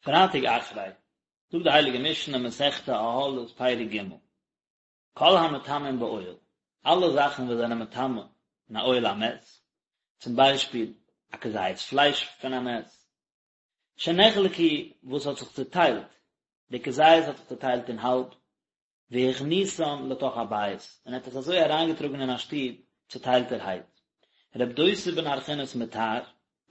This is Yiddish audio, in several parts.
פרייטאג אחרי, זאגט די הייליגע משנה מסכת אהלות פרק ג', כל המטמאין באוהל, אלע זאכן וואס זענען מטמא אין א אוהל המת, צום ביישפיל א כזית פלייש פון א מת, שנחלקו וואס האט זיך צוטיילט, די כזית האט זיך צוטיילט אין האלב, והכניסן לתוך הבית, און ער האט עס אזוי אריינגעטראגן אין א שטוב צוטיילטערהייט. רב דוסא בן הרכינס מטהר,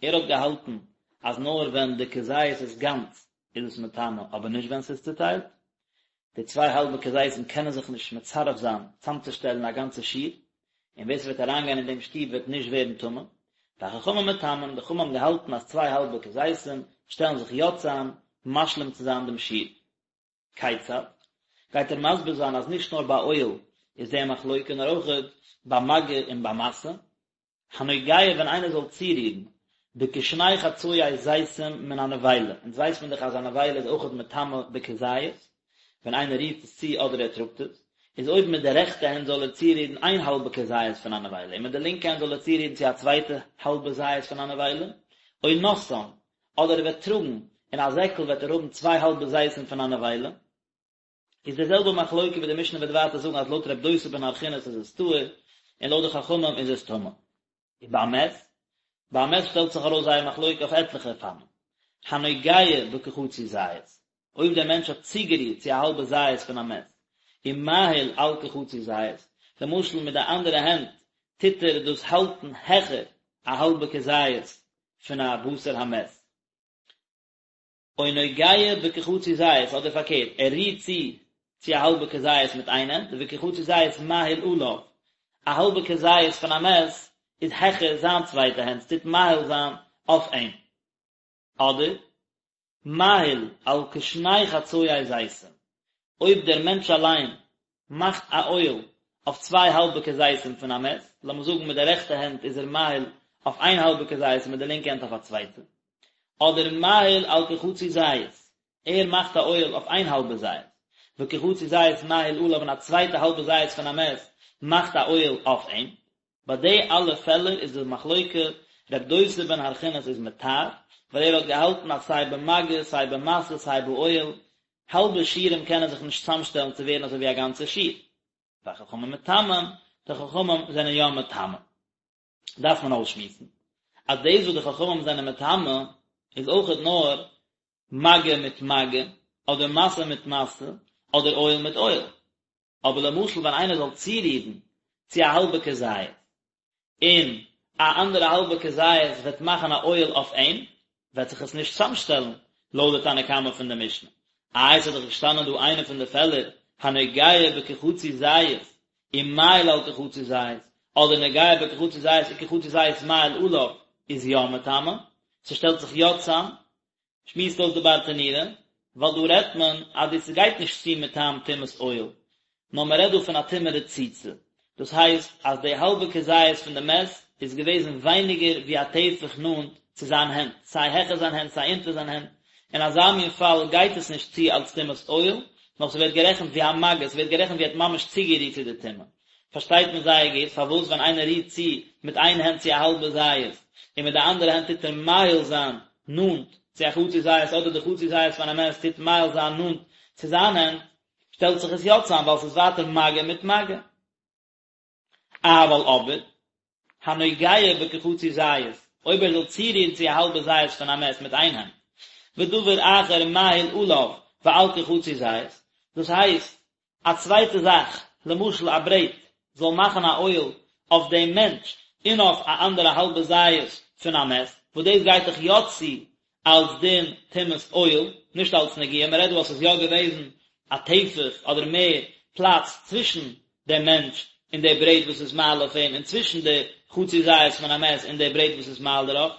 ער האט געהאלטן אז נאר ווען די כזית איז גאנץ איז עס מטמא אבער נישט ווען ס'איז צוטיילט. די צוויי האלבע כזיתים קענען זיך נישט מצרף זיין צאמצושטעלן א גאנצע שיעור, און ווער ס'וועט אריינגיין אין דעם שטוב וועט נישט ווערן טמא. והחכמים מטמאין, די חכמים האבן געהאלטן אז צוויי האלבע כזיתים שטעלן זיך יא צאם משלים צו זיין דעם שיעור. כיצד? גייט ער מסביר זיין אז נישט נאר ביי אוהל איז די מחלוקה נאר אויכעט ביי מגע און ביי משא. הנוגע ווען איינער זאל צורירן בכשני חצאי זיתים מן הנבילה, אונז ווייסט מען דאך אז א נבילה איז אויכעט מטמא בכזית, ווען איינער רירט עס צו אדער ער טראגט עס, איז אויב מיט די רעכטע הענט זאל ער צורירן איין האלבע כזית פון א נבילה און מיט די לינקע הענט זאל ער צורירן צו א צווייטע האלבע זית פון א נבילה, או נושאן, אדער ער וועט טראגן אין א זעקל וועט ער האבן צוויי האלבע זיתים פון א נבילה, איז די זעלבע מחלוקה ווי די משנה וועט ווייטער זאגן אז לויט רב דוסא בן הרכינס איז עס טהור און לויט די חכמים איז עס טמא. ובמת, ביי א מת שטעלט זיך ארויס זייער מחלוקה אויף עטליכע אופנים. הנוגע בכחצי זית, אויב דער מענטש האט צוגערירט צו א האלבע זית פון א מת, ומאהיל על כחצי זית, למשל מיט די אנדערע הענט טוט ער דאס האלטן העכער א האלבע כזית פון א בשר המת. או נוגע בכחצי זית, אדער פארקערט, ער רירט צו צו א האלבע כזית מיט איין הענט, וכחצי זית מאהיל עליו, א האלבע כזית פון א מת איז העכער זיין צווייטע הענט, ס'טוט מאהיל זיין אויף אים. אדער, מאהיל על כשני חצאי זיתים, אויב דער מענטש אליין מאכט א אוהל אויף צוויי האלבע כזיתים פון א מת, לאמיר זאגן מיט די רעכטע הענט איז ער מאהיל אויף איין האלבע כזית און מיט די לינקע הענט אויף א צווייטע, אדער מאהיל על כחצי זית, ער מאכט א אוהל אויף איין האלבע זית, וכחצי זית מאהיל עליו און א צווייטע האלבע זית פון א מת מאכט א אוהל אויף אים. ביי די אלע פעלער איז די מחלוקה, רב דוסא בן הרכינס איז מטהר, ווייל ער האט געהאלטן אז סיי במגע, סיי במשא, סיי באוהל, האלבע שיעורים קענען זיך נישט צאמשטעלן צו ווערן אזוי ווי א גאנצע שיעור. והחכמים מטמאים, די חכמים זענען יא מטמא. דארף מען אויסשמועסן, אז דאס וואס די חכמים זענען מטמא, איז אויכעט נאר מגע מיט מגע, אדער משא מיט משא, אדער אוהל מיט אוהל. אבער למשל ווען איינער זאל צורירן צו א האלבע כזית, און א אנדערע האלבע כזית וועט מאכן א אוהל אויף אים, וועט זיך עס נישט צאמשטעלן לויט די תנא קמא פון די משנה. איי עס איז דאך געשטאנען דא איינע פון די פעלער, הנוגע בכחצי זית ומאהיל על כחצי זית, אדער נוגע בכחצי זית וכחצי זית מאהיל עליו, איז יא מטמא, ס'שטעלט זיך יא צאם, שמועסט אויס די ברטנורא, ווייל דא רעדט מען אז דאס גייט נישט צו מטעם טומאת אוהל, נאר מען רעדט דא פון א טומאה רצוצה, דאס הייסט אז די האלבע כזית פון די מת איז געוועזן ווייניגער ווי א טפח נאנט צו זיין הענט, סיי העכער זיין הענט סיי אונטער זיין הענט, אין אזא מין פאל גייט עס נישט צו אלס טומאת אוהל, נאר ס'ווערט גערעכנט ווי א מגע, ס'ווערט גערעכנט ווי ער האט ממש צוגערירט צו די טומאה. פארשטייט מען זייער גוט פארוואס ווען איינער רירט צו מיט איין הענט צו א האלבע זית און מיט די אנדערע הענט טוט ער מאהיל זיין נאנט צו א חצי זית אדער די חצי זית פון א מת טוט מאהיל זיין נאנט צו זיין הענט שטעלט זיך עס יא צאם ווייל ס'איז ווייטער מגע מיט מגע. אבל אבער הנוגע בכחצי זית אויב ער זאל צורירן צו א האלבע זית פון א מת מיט איין הענט ודבר אחר מאהיל עליו ועל כחצי זית דאס הייסט א צווייטע זאך, למשל א ברעט, זאל מאכן א אוהל אויף דעם מענטש און אויף א אנדערע האלבע זית פון א מת, וואס דאס גייט דאך יא צו אלס דין טומאת אוהל, נישט אלס נגיעה, מען רעדט דא אז ס'איז יא געוועזן א טפח אדער מער פלאץ צווישן דעם מענטש און די ברעט וואס איז מאהיל אויף אים און צווישן די חצי זית פון א מת און די ברעט וואס איז מאהיל דערויף.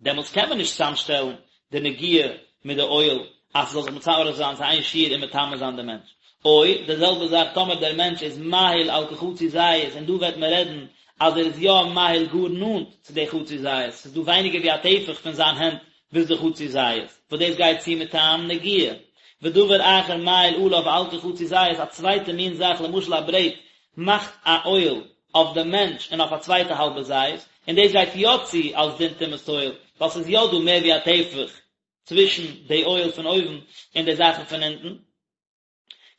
דעמאלטס קען מען נישט צוזאמשטעלן די נגיעה מיט די אוהל אז ס'זאל זיך מצרף זיין צו איין שיעור און מטמא זיין די מענטש. או, די זעלבע זאך טאמער דער מענטש איז מאהיל על כחצי זית און דא וועט מען רעדן אז ער איז יא מאהיל גאר נאנט צו די חצי זית, ס'איז דא ווייניגער ווי א טפח פון זיין הענט ביז די חצי זית, וואס דאס גייט צו מטעם נגיעה. ודבר אחר מאהיל עליו ועל כחצי זית, א צווייטע מין זאך למשל א ברעט מאכט א אוהל אויף דעם מענטש און אויף א צווייטע האלבע זית, און דאס גייט יא צו אלס דין טומאת אוהל, ווייל ס'איז יא דא מער ווי א טפח. צווישן די אוהל פון אויבן און די זאכן פון אונטן,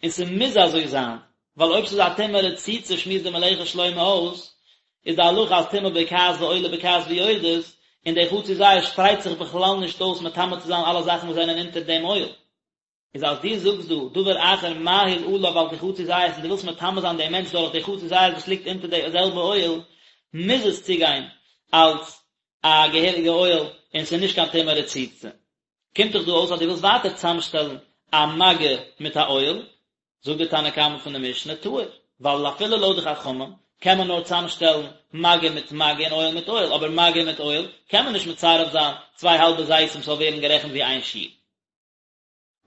און ס'מוז אזוי זיין, ווייל אויב ס'איז א טומאה רצוצה שמועסט די מלאכת שלמה אויס, איז די הלכה אז טומאה בוקעת ועולה בוקעת ויורדת, און די חצי זית שפרייט זיך בכלל נישט אויס מטמא צו זיין אלע זאכן וואס זענען אונטער דעם אוהל. איז אז דו זאגסט דא דבר אחר מאהיל עליו על כחצי זית און דו ווילסט מטמא זיין דעם מענטש דורך די חצי זית וואס ליגט אונטער די זעלבע אוהל, מוז עס צוגיין אלס א געהעריגע אוהל און ס'איז נישט קיין טומאה רצוצה. קומט דאך דא אויס אז דו ווילסט ווייטער צוזאמשטעלן א מגע מיט א אוהל, זאגט די תנא קמא פון די משנה טהור, ווייל אפילו לויט די חכמים קען מען נאר צוזאמשטעלן מגע מיט מגע און אוהל מיט אוהל, אבער מגע מיט אוהל קען מען נישט מצרף זיין צוויי האלבע זיתים ס'זאל ווערן גערעכנט ווי איין שיעור.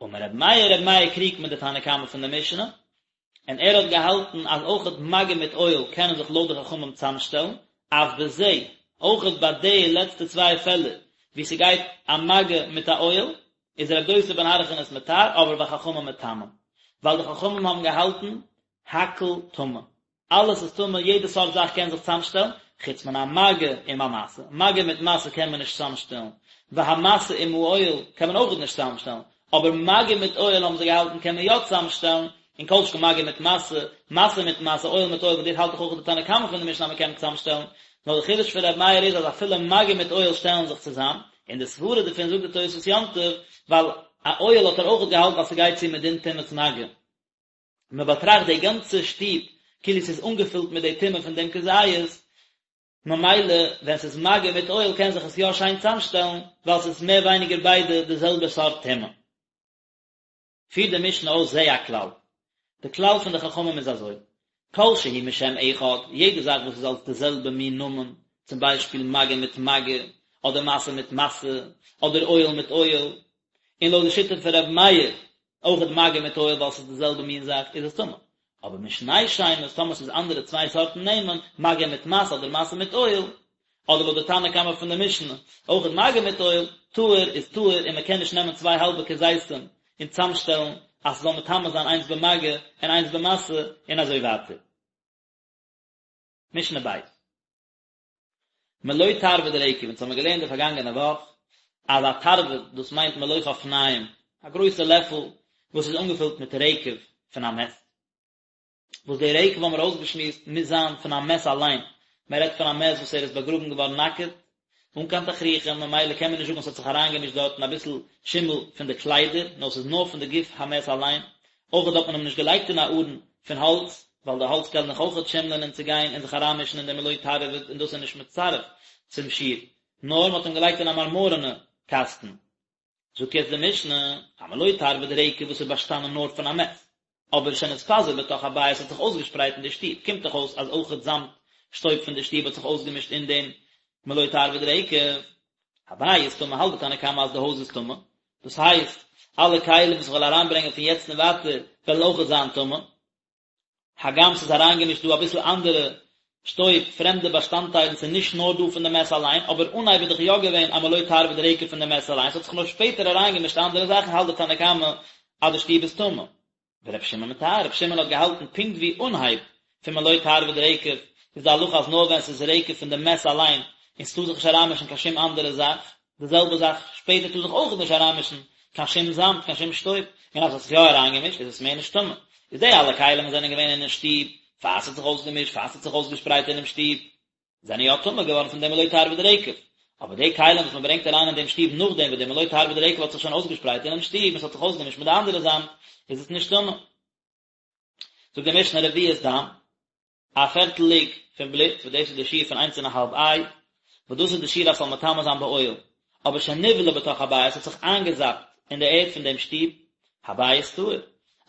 אמר רבי מאיר, רבי מאיר קריגט מיט די תנא קמא פון די משנה, און ער האט געהאלטן אז אויכעט מגע מיט אוהל קענען זיך לויט די חכמים צוזאמשטעלן, אף בזה, אויכעט ביי די לעצטע צוויי פעלער וואו ס'גייט א מגע מיט א אוהל, איז רבי דוסא בן הרכינס מטהר, אבער וחכמים מטמאים, ווייל די חכמים האבן געהאלטן הכל טמא, אלעס איז טמא, יעדע סארט זאך קען זיך צוזאמשטעלן, חוץ מן המגע עם המשא, מגע מיט משא קען מען נישט צוזאמשטעלן, והמשא עם האוהל קען מען אויכעט נישט צוזאמשטעלן, אבער מגע מיט אוהל האבן זיי געהאלטן קען מען יא צוזאמשטעלן, און כל שכן מגע מיט משא, משא מיט משא, אוהל מיט אוהל, וואס דאס האלט דאך אויך די תנא קמא פון די משנה אז מען קען צוזאמשטעלן, נאר די חידוש פון ר' מאיר איז אז אפילו מגע מיט אוהל שטעלן זיך צוזאם, און די סברה דערפון זאגט די תוספות יום טוב, ווייל א אוהל האט ער אויכעט געהאלטן אז ס'גייט צו מדין טומאת מגע. מען באטראכט די גאנצע שטוב כאילו ס'איז אנגעפילט מיט די טומאה פון דעם כזית, ממילא ווען ס'איז מגע מיט אוהל קען זיך עס יא שיין צאמשטעלן, ווייל ס'איז מער ווייניגער ביידע די זעלבע סארט טומאה. פירט די משנה אויס זה הכלל. די כלל פון די חכמים איז אזוי, כל שהוא משם אחד, יעדע זאך וואס איז אלס די זעלבע מין נאמען, צום ביישפיל מגע מיט מגע, אדער משא מיט משא, אדער אוהל מיט אוהל, און לויט די שיטה פון ר' מאיר, אויכעט מגע מיט אוהל ווייל ס'איז די זעלבע מין זאך איז עס טמא. אבער משני שמות טאמער ס'איז אנדערע צוויי סארטן נעמען, מגע מיט משא אדער משא מיט אוהל, אדער לויט די תנא קמא פון די משנה, אויכעט מגע מיט אוהל, טהור איז טהור און מ'קען נישט נעמען צוויי האלבע כזיתים און צאמשטעלן אז ס'זאל מטמא זיין איינס במגע און איינס במשא און אזוי ווייטער. משנה ב'. מלא תרווד רקב, אונז האמיר געלערנט די פארגאנגענע וואך אז א תרווד דאס מיינט מלא חפניים, א גרויסע לעפל וואס איז אנגעפילט מיט רקב פון א מת, וואס די רקב האמיר אויסגעשמועסט מוז זיין פון א מת אליין, מען רעדט פון א מת וואס ער איז באגראבן געווארן נאקעט, אן קיין תכריכים, ממילא קען מען נישט זאגן אז ס'האט זיך אריינגעמישט דארטן אביסל שימל פון די קליידער, נאר ס'איז נאר פון די גוף המת אליין, אויכעט האט מען אים נישט געלייגט אין א ארון פון האלץ, ווייל די האלץ קען דאך אויכעט שימלען און צוגיין און זיך אריינמישן אין די מלא תרווד און דאס איז נישט מצטרף צום שיעור, נאר מען האט אים געלייגט אין א מארמארענע קאסטן. זאגט יעצט די משנה, א מלא תרווד רקב וואס איז באשטאנען נאר פון א מת, אבער שנתפזר בתוך הבית האט זיך אויסגעשפרייט אין די שטוב, קומט דאך אויס אז אויכעט זאמד שטויב פון די שטוב האט זיך אויסגעמישט אין דעם מלא תרווד רקב. הבית טמא האלט די תנא קמא אז די הויז איז טמא, דאס הייסט, אלע כלים וואס איך וועל אריינברענגען פון יעצט און ווייטער וועלן אויכעט זיין טמא, הגם ס'איז אריינגעמישט דא אביסל אנדערע שטויב, פרעמדע באשטאנדטיילן, ס'איז נישט נאר דא פון די מת אליין, אבער אנהייב איז דאך יא געווען א מלא תרווד רקב פון די מת אליין, ס'האט זיך נאר שפעטער אריינגעמישט אנדערע זאכן, האלט די תנא קמא אז די שטוב איז טמא. ור' שמעון מטהר, ר' שמעון האט געהאלטן פונקט ווי אנהייב פון מלא תרווד רקב איז די הלכה אז נאר ווען ס'איז רקב פון די מת אליין און ס'טאר זיך נישט אריינמישן קיין שום אנדערע זאך, די זעלבע זאך שפעטער טאר זיך אויך נישט אריינמישן קיין שום זאמד קיין שום שטויב, און אז ס'האט זיך יא אריינגעמישט איז עס מער נישט טמא. איז די אלע כלים וואס זענען געווען אינעם שטוב פאר ס'האט זיך אויסגעמישט פאר ס'האט זיך אויסגעשפרייט אינעם שטוב, זענען יא טמא געווארן פון דעם מלא תרווד רקב, אבער די כלים וואס מען ברענגט אריין אין דעם שטוב נאכדעם וואס דער מלא תרווד רקב האט זיך שוין אויסגעשפרייט אינעם שטוב און ס'האט זיך אויסגעמישט מיט די אנדערע זאמד, איז עס נישט טמא. זאגט די משנה רביעית דם, א פערטל לוג פון בלוט, וואס דאס איז די שיעור פון איינס און א האלב איי, וואס דאס איז די שיעור אז ס'זאל מטמא זיין באוהל, אבער שנבלע בתוך הבית האט זיך איינגעזאפט אין די ערד פון דעם שטוב, הבית טהור.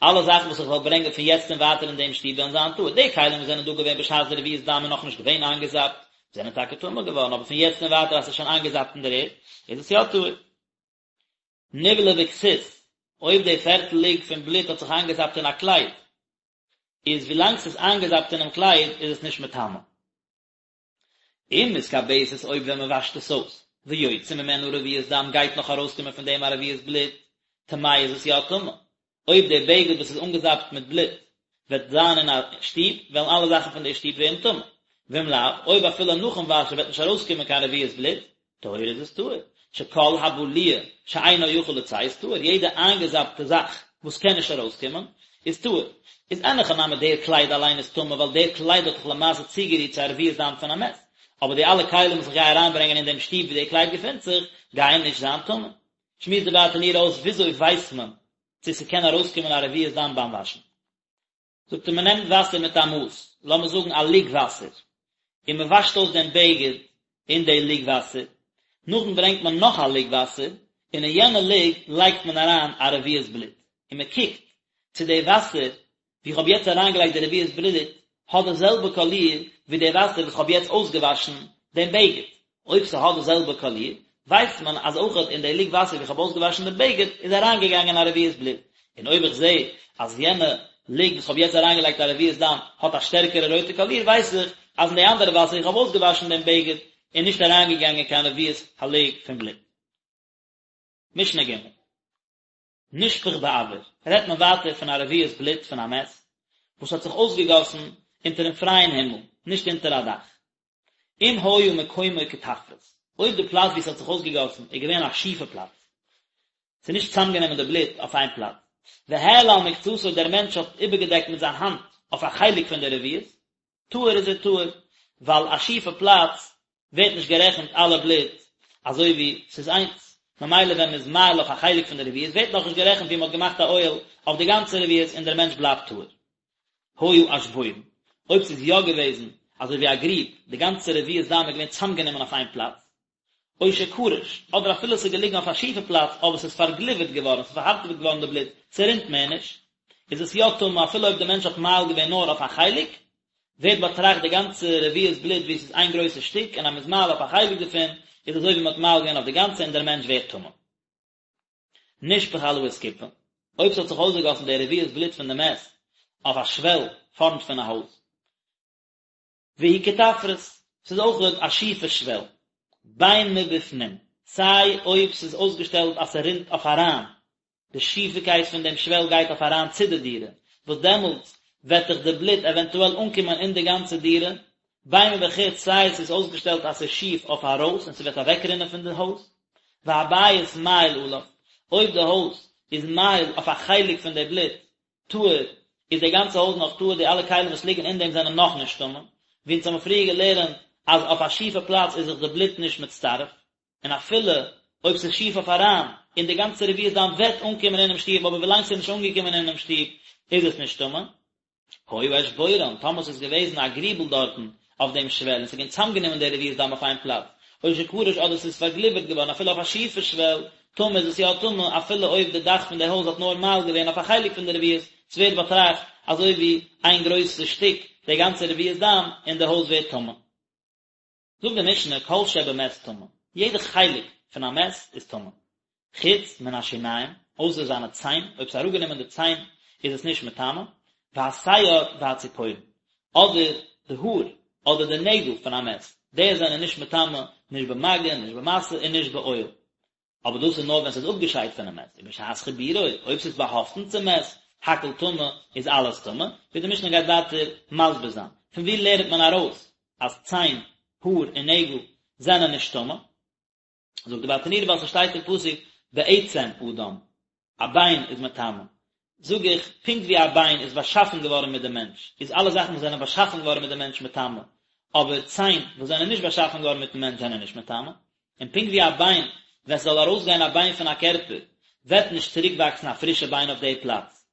אלע זאכן וואס איך וועל ברענגען פון יעצט און ווייטער אין דעם שטוב וועלן זיין טהור. די כלים וואס זענען דא געווען בשעת די רביעית דם איז נאכנישט געווען איינגעזאפט, זענען טאקע טמא געווארן, אבער פון יעצט און ווייטער אז ס'איז שוין איינגעזאפט אין דער ערד, איז עס יא טהור. נבלע בכסות, אויב די פערטל לוג פון בלוט האט זיך איינגעזאפט אין א קלייד, איז ווילאנג ס'איז איינגעזאפט אינעם קלייד איז עס נישט מטמא. אם מתכבסת אויב ווען מען וואשט עס אויס, ויוצא ממנה רביעית דם גייט נאך ארויסקומען פון דעם א רביעית בלוט, טמאה איז עס יא טמא. אויב די בגד וואס איז אנגעזאפט מיט בלוט וועט זיין אין א שטוב, וועלן אלע זאכן פון די שטוב ווערן טמא. ואם לאו, אויב אפילו נאכן וואשן וועט נישט ארויסקומען קיין רביעית בלוט, טהורה איז עס טהור. שכל הבלוע שאינו יכול לצאת טהור, יעדע איינגעזאפטע זאך וואס קען נישט ארויסקומען איז טהור. איז אין הכי נמי דער קלייד אליין איז טמא ווייל דער קלייד האט דאך למעשה צוגערירט צו א רביעית דם פון א מת, אבער די אלע כלים וואס איך גיי אריינברענגען אין דעם שטוב ווי דער קלייד געפינט זיך גייען נישט זיין טמא. שמועסט די ברטנורא אויס וויאזוי ווייסט מען צו ס'קען ארויסקומען א רביעית דם ביים וואשן. זאגט ער מען נעמט וואסער מיט א מאס, לאמיר זאגן א לוג וואסער, און מען וואשט אויס דעם בגד אין די לוג וואסער, נאכדעם ברענגט מען נאך א לוג וואסער, און אין יענע לוג לייגט מען אריין א רביעית בלוט, און מען קוקט צו די וואסער ווי איך האב יעצט אריינגעלייגט די רביעית בלוט האט די זעלבע קאליר ווי די וואסער וואס איך האב יעצט אויסגעוואשן דעם בגד, אויב ס'האט די זעלבע קאליר, ווייסט מען אז אויכעט אין די לוג וואסער ווי איך האב אויסגעוואשן דעם בגד איז אריינגעגאנגען א רביעית בלוט, און אויב איך זע אז יענע לוג וואס כ'האב יעצט אריינגעלייגט א רביעית דם האט א שטערקערע רויטע קאליר ווייס איך אז אין די אנדערע וואסער ווי איך האב אויסגעוואשן דעם בגד איז נישט אריינגעגאנגען קיין רביעית הלוג פון בלוט. משנה ג'. נשפך באויר, רעדט מען ווייטער פון א רביעית בלוט פון א מת וואס האט זיך אויסגעגאסן אונטערן פרייען הימל, נישט אונטער א דאך. אם היה מקומו קטפרס, אויב די פלאץ וואו עס האט זיך אויסגעגאסן איז געווען א שיפע פלאץ, ס'איז נישט צוזאמגענומען די בלוט אויף איין פלאץ, והעלה על מקצתו דער מענטש האט איבערגעדעקט מיט זיין האנט אויף א חלק פון די רביעית, טהור איז ער טהור, ווייל א שיפע פלאץ ווערט נישט גערעכנט אלע בלוט אזוי ווי ס'איז איינס, ממילא ווען מ'איז מאהיל אויף א חלק פון די רביעית ווערט נאכנישט גערעכנט ווי מ'האט געמאכט א אוהל אויף די גאנצע רביעית און דער מענטש בלייבט טהור. היה אשבורן, אויב ס'איז יא געוועזן אזוי ווי א גריב, די גאנצע רביעית דם איז געווען צאמגענומען אויף איין פלאץ, או שקרש, אדער אפילו ס'איז געליגן אויף א שיפע פלאץ אבער ס'איז פארגליווערט געווארן, ס'איז פארהארטעוועט געווארן די בלוט, ס'רינט מער נישט, איז עס יא טמא אפילו אויב די מענטש האט מאהיל געווען נאר אויף א חלק, ווערט באטראכט די גאנצע רביעית בלוט ווי עס איז איין גרויסע שטיק און אז מ'איז מאהיל אויף א חלק דערפון איז אזוי ווי מ'האט מאהיל געווען אויף די גאנצע און דער מענטש ווערט טמא. נשפך על האסקופה, אויב ס'האט זיך אויסגעגאסן די רביעית בלוט פון די מת אויף א שוועל פארנט פון א הויז, והיא קטפרס, ס'איז אויכעט א שיפע שוועל, בין מבפנים, סיי אויב ס'איז אויסגעשטעלט אז ס'רינט אויף אריין, די שיפיקייט פון דעם שוועל גייט אויף אריין צו די דירה, וואס דעמאלטס וועט דאך די בלוט עווענטועל אנקומען אין די גאנצע דירה, בין מבחוץ, סיי ס'איז אויסגעשטעלט אז ס'איז שיף אויף ארויס און ס'וועט אוועקרינען פון די הויז, והבית מאהיל עליו, אויב די הויז איז מאהיל אויף א חלק פון די בלוט, טהור, איז די גאנצע הויז נאך טהור, די אלע כלים וואס ליגן אין דעם זענען נאך נישט טמא, ווי אונז האבן פריער געלערנט אז אויף א שיפע פלאץ איז זיך די בלוט נישט מצטרף, און אפילו אויב ס'איז שיף אויף אריין, און די גאנצע רביעית דם וועט אנקומען אינעם שטוב, אבער ווילאנג ס'איז נישט אנגעקומען אינעם שטוב איז עס נישט טמא. היה אשבורן, טאמער ס'איז געוועזן א גריבל דארטן אויף דעם שוועל און ס'איז געווען צאמגענומען די רביעית דם אויף איין פלאץ, או שקרש אדער ס'איז פארגליווערט געווארן אפילו אויף א שיפע שוועל, טמא איז עס יא טמא אפילו אויב די דאך פון די הויז האט נאר מאהיל געווען אויף א חלק פון די רביעית, ס'ווערט באטראכט אזוי ווי איין גרויסע שטיק די גאנצע רביעית דם און די הויז ווערט טמא. זאגט די משנה כל שבמת טמא, יעדע חלק פון א מת איז טמא, חוץ מן השיניים, אויסער זיינע ציין, אויב ס'איז אראפגענומען די ציין איז עס נישט מטמא, והשער והציפורן, אדער די האר אדער די נעגל פון א מת, די זענען נישט מטמא, נישט במגע, נישט במשא און נישט באוהל. אבער דאס איז נאר ווען ס'איז אפגעשיידט פונעם מת, ובשעת חיבורו, אויב ס'איז באהאפטן צום מת, הכל טמא, איז אלעס טמא, ווי די משנה גייט ווייטער מסביר זיין. פון וואו לערנט מען ארויס אז ציין, האר און נעגל זענען נישט טמא? זאגט די ברטנורא ווייל ס'שטייט אין פסוק בעצם אדם, א ביין איז מטמא, זאג איך, פונקט ווי א ביין איז באשאפן געווארן מיט דעם מענטש, איז אלע זאכן וואס זענען באשאפן געווארן מיט דעם מענטש מטמא, אבער ציין וואס זענען נישט באשאפן געווארן מיטן מענטש זענען נישט מטמא, און פונקט ווי א ביין, ווען ס'זאל ארויסגיין א ביין פון א קערפער, וועט נישט צוריקוואקסן א פרישע ביין אויף די פלאץ,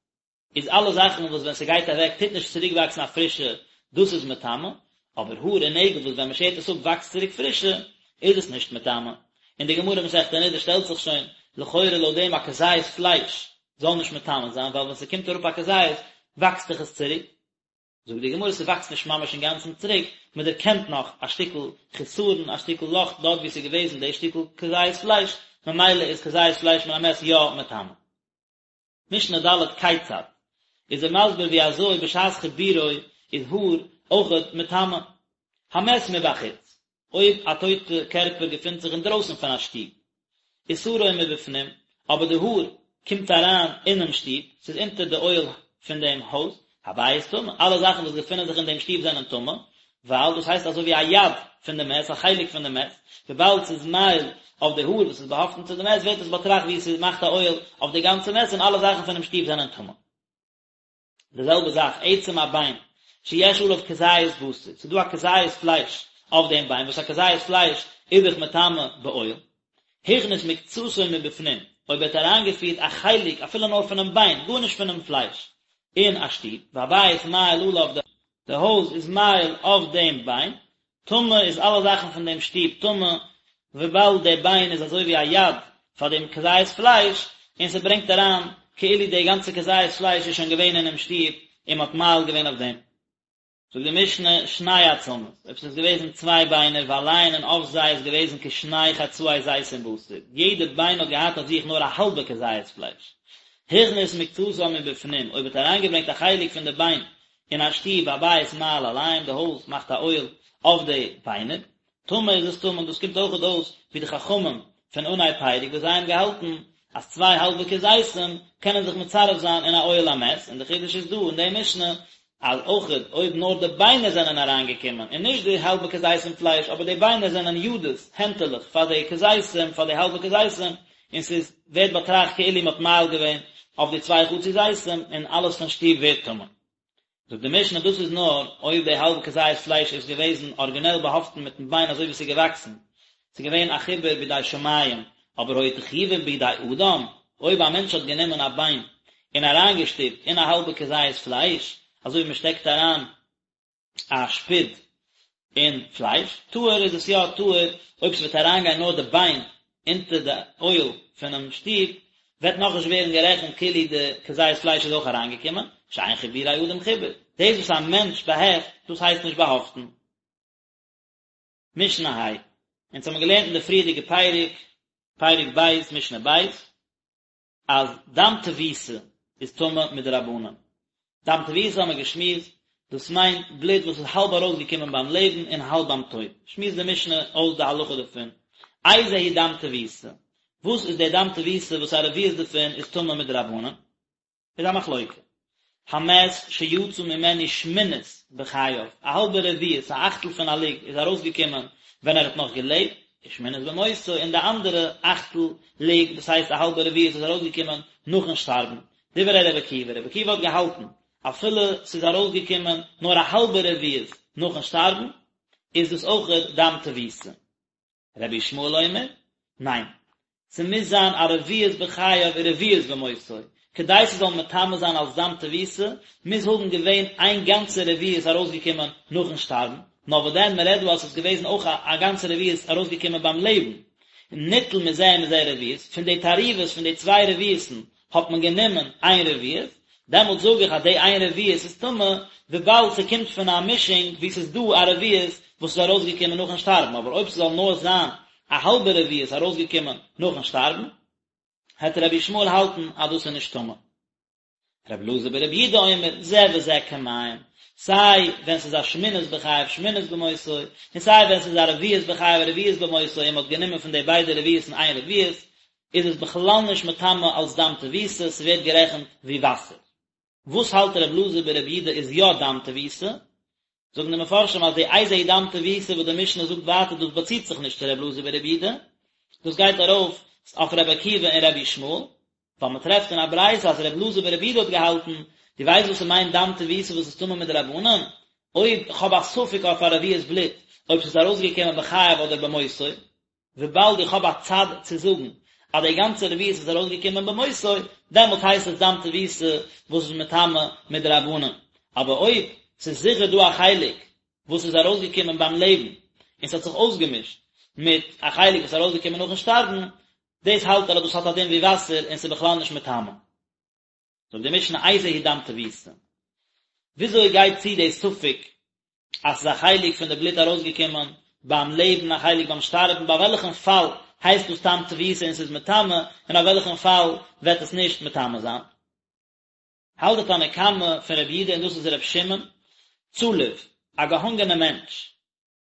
איז אלע זאכן וואס ווען ס'גייט אוועק טוט נישט צוריק וואקסן א פרישע, דאס איז מטמא, אבער האר און נעגל וואס ווען מ'שערט עס אפ וואקסט צוריק פרישע, איז עס נישט מטמא. און די גמרא מסכת נדה שטעלט זיך שוין, לכאורה לויט דעם א כזית פלייש זאל נישט מטמא זיין, ווייל ווען ס'קומט אראפ א כזית וואקסט דאך עס צוריק. זאגט די גמרא ס'וואקסט נישט ממש אינגאנצן צוריק, מ'דערקענט נאך א שטיקל חיסרון, א שטיקל לאך דארט וואו ס'איז געוועזן די שטיקל כזית פלייש, ממילא איז כזית פלייש מן המת יא מטמא. משנה ד' כיצד, איז ער מסביר ווי אזוי בשעת חיבורו איז האר אויכעט מטמא. המת מבחוץ, אויב א טויטע קערפער געפינט זיך אינדרויסן פון א שטוב, ושערו מבפנים, אבער די האר קומט אריין אינעם שטוב, ס'איז אונטער די אוהל פון דעם הויז, הבית טמא, אלע זאכן וואס געפינען זיך אין דעם שטוב זענען טמא. ווייל דאס הייסט אזוי ווי א יד פון די מת, א חלק פון די מת, וויבאלד ס'איז מאהיל אויף די האר וואס איז באהאפטן צו די מת ווערט עס באטראכט ווי ס'מאכט א אוהל אויף די גאנצע מת און אלע זאכן פונעם שטוב זענען טמא. די זעלבע זאך עצם א ביין שיש עליו כזית בשר, ס'איז דא א כזית פלייש אויף דעם ביין, וואס א כזית פלייש איז דאך מטמא באוהל, הכניס מקצתו מבפנים, אויב ער האט אריינגעפירט א חלק אפילו נאר פונעם ביין, גארנישט פונעם פלייש, אין א שטוב, והבית מאהיל עליו, די הויז איז מאהיל אויף דעם ביין, טמא איז אלע זאכן פון דעם שטוב טמא, וויבאלד דער ביין איז אזוי ווי א יד פאר דעם כזית פלייש, און ס'ברענגט אריין כאילו די גאנצע כזית פלייש איז שוין געווען אינעם שטוב און מ'האט מאהיל געווען אויף דעם. זאגט די משנה, שני עצמות, אויב ס'איז געוועזן צוויי ביינער ועליהן און אויף זיי איז געוועזן כשני חצאי זיתים בשר, יעדע ביין האט געהאט אויף זיך נאר א האלבע כזית פלייש. הכניס מקצתם מבפנים, אויב האט אריינגעברענגט א חלק פון די ביין אין א שטוב והבית מאהיל עליהם, די הויז מאכט א אוהל אויף די ביינער, טמא איז עס טמא, און דאס קומט אויכעט אויס ווי די חכמים פון אנהייב פרק וואס זיי האבן געהאלטן אז צוויי האלבע כזיתים קענען זיך מצרף זיין אין א אוהל המת, און די חידוש איז דא אין די משנה אז אויכעט אויב נאר די ביינער זענען אריינגעקומען און נישט די האלבע כזיתים פלייש אבער די ביינער זענען ידות, הענטעלעך, פאר די כזיתים, פאר די האלבע כזיתים, און ס'איז ווערט באטראכט כאילו מ'האט מאהיל געווען אויף די צוויי חצי זיתים און אלעס פון שטוב ווערט טמא. זאגט די משנה דאס איז נאר אויב די האלבע כזית פלייש איז געוועזן ארגינעל באהאפטן מיטן ביין אזוי ווי ס'איז געוואקסן, ס'איז געווען א חיבור בידי שמים, אבער היו תחובין בידי אדם, אויב א מענטש האט גענומען א ביין און אריינגעשטופט אין א האלבע כזית פלייש, אזוי ווי מ'שטעקט אריין א שפיד אין פלייש, טהור איז עס יא טהור, אויב ס'וועט אריינגיין נאר די ביין אונטער די אוהל פונעם שטוב, וועט נאכנישט ווערן גערעכנט כאילו די כזית פלייש איז אויך אריינגעקומען, שאין חיבורי אדם חיבור, דאס וואס א מענטש באהעפט, דאס הייסט נישט באהאפטן. משנה ה', אונז האבן געלערנט אין די פריערדיגע פרק, פרק ב', משנה ב', אז דם תבוסה איז טמא מדרבנן. דם תבוסה האבן מיר געשמועסט, דאס מיינט בלוט וואס איז האלב ארויסגעקומען ביים לעבן און האלב ביים טויט. שמועסט די משנה אויס די הלכה דערפון. איזהו דם תבוסה? וואס איז דער דם תבוסה וואס א רביעית דערפון איז טמא מדרבנן? איז א מחלוקה. המת שיצא ממנו שמינית בחייו, א האלבע רביעית, א אכטל פון א לוג, איז ארויסגעקומען ווען ער האט נאך געלעבט, ושמינית במותו, און די אנדערע אכטל לוג, דאס הייסט א האלבע רביעית, איז ארויסגעקומען נאכן שטארבן. דברי רבי עקיבא, רבי עקיבא האט געהאלטן, אפילו ס'איז ארויסגעקומען נאר א האלבע רביעית נאכן שטארבן, איז דאס אויכעט דם תבוסה. רבי ישמעאל אומר, ניין, ס'מוז זיין א רביעית בחייו ורביעית במותו, כדי ס'זאל מטמא זיין אלס דם תבוסה, מוז האבן געווען איין גאנצע רביעית ארויסגעקומען נאכן שטארבן, נאר וואס דען מ'רעדט דא אז ס'איז געוועזן אויך א גאנצע רביעית ארויסגעקומען ביים לעבן, ניטל מזה ומזה רביעית, פון די תערובות פון די צוויי רביעית'ן האט מען גענומען איין רביעית, דעמאלט זאג איך אז די איין רביעית איז טמא, וויבאלד ס'קומט פון א מישונג וואו ס'איז דא א רביעית וואס איז ארויסגעקומען נאכן שטארבן, אבער אויב ס'זאל נאר זיין א האלבע רביעית ארויסגעקומען נאכן שטארבן, העט רבי ישמעאל האלטן אז דאס איז נישט טמא. רבי אלעזר ברבי יהודה אומר, זה וזה כמים, סיי ווען ס'איז א שמינית בחייו שמינית במותו, און סיי ווען ס'איז א רביעית בחייו רביעית במותו און מ'האט גענומען פון די ביידע רביעית'ן איין רביעית, איז עס בכלל נישט מטמא אלס דם תבוסה, ס'ווערט גערעכנט ווי וואסער. וואס האלט ר' אלעזר ברבי יהודה איז יא דם תבוסה? זאגן די מפרשים אז די איזהו דם תבוסה וואס די משנה זאגט ווייטער דאס באציט זיך נישט צו ר' אלעזר ברבי יהודה, דאס גייט ארויף אויף ר' עקיבא און ר' ישמעאל, ווייל מען טרעפט אין א ברייתא אז ר' אלעזר ברבי יהודה האט געהאלטן, דו ווייסט וואס ס'מיינט דם תבוסה וואס איז טמא מדרבנן? אויב כ'האב א ספק אויף א רביעית בלוט אויב ס'איז ארויסגעקומען בחייו אדער במותו, וויבאלד איך האב א צד צו זאגן אז די גאנצע רביעית איז ארויסגעקומען במותו, דעמאלט הייסט עס דם תבוסה וואס איז מטמא מדרבנן. אבער אויב ס'איז זיכער דא א חלק וואס איז ארויסגעקומען ביים לעבן און ס'האט זיך אויסגעמישט מיט א חלק וואס איז ארויסגעקומען נאכן שטארבן, דאס האלט ער אז דאס האט א דין ווי וואסער און ס'איז בכלל נישט מטמא. זאגט די משנה איזהו דם תבוסה. וויאזוי גייט צו די ספק אז ס'איז א חלק פון די בלוט ארויסגעקומען ביים לעבן א חלק ביים שטארבן, ביי וועלכן פאל הייסט דאס דם תבוסה און ס'איז מטמא, און אויף וועלכן פאל וועט עס נישט מטמא זיין? האלט די תנא קמא פון רבי יהודה און דאס איז רבי שמעון, צלוב, א געהאנגענע מענטש,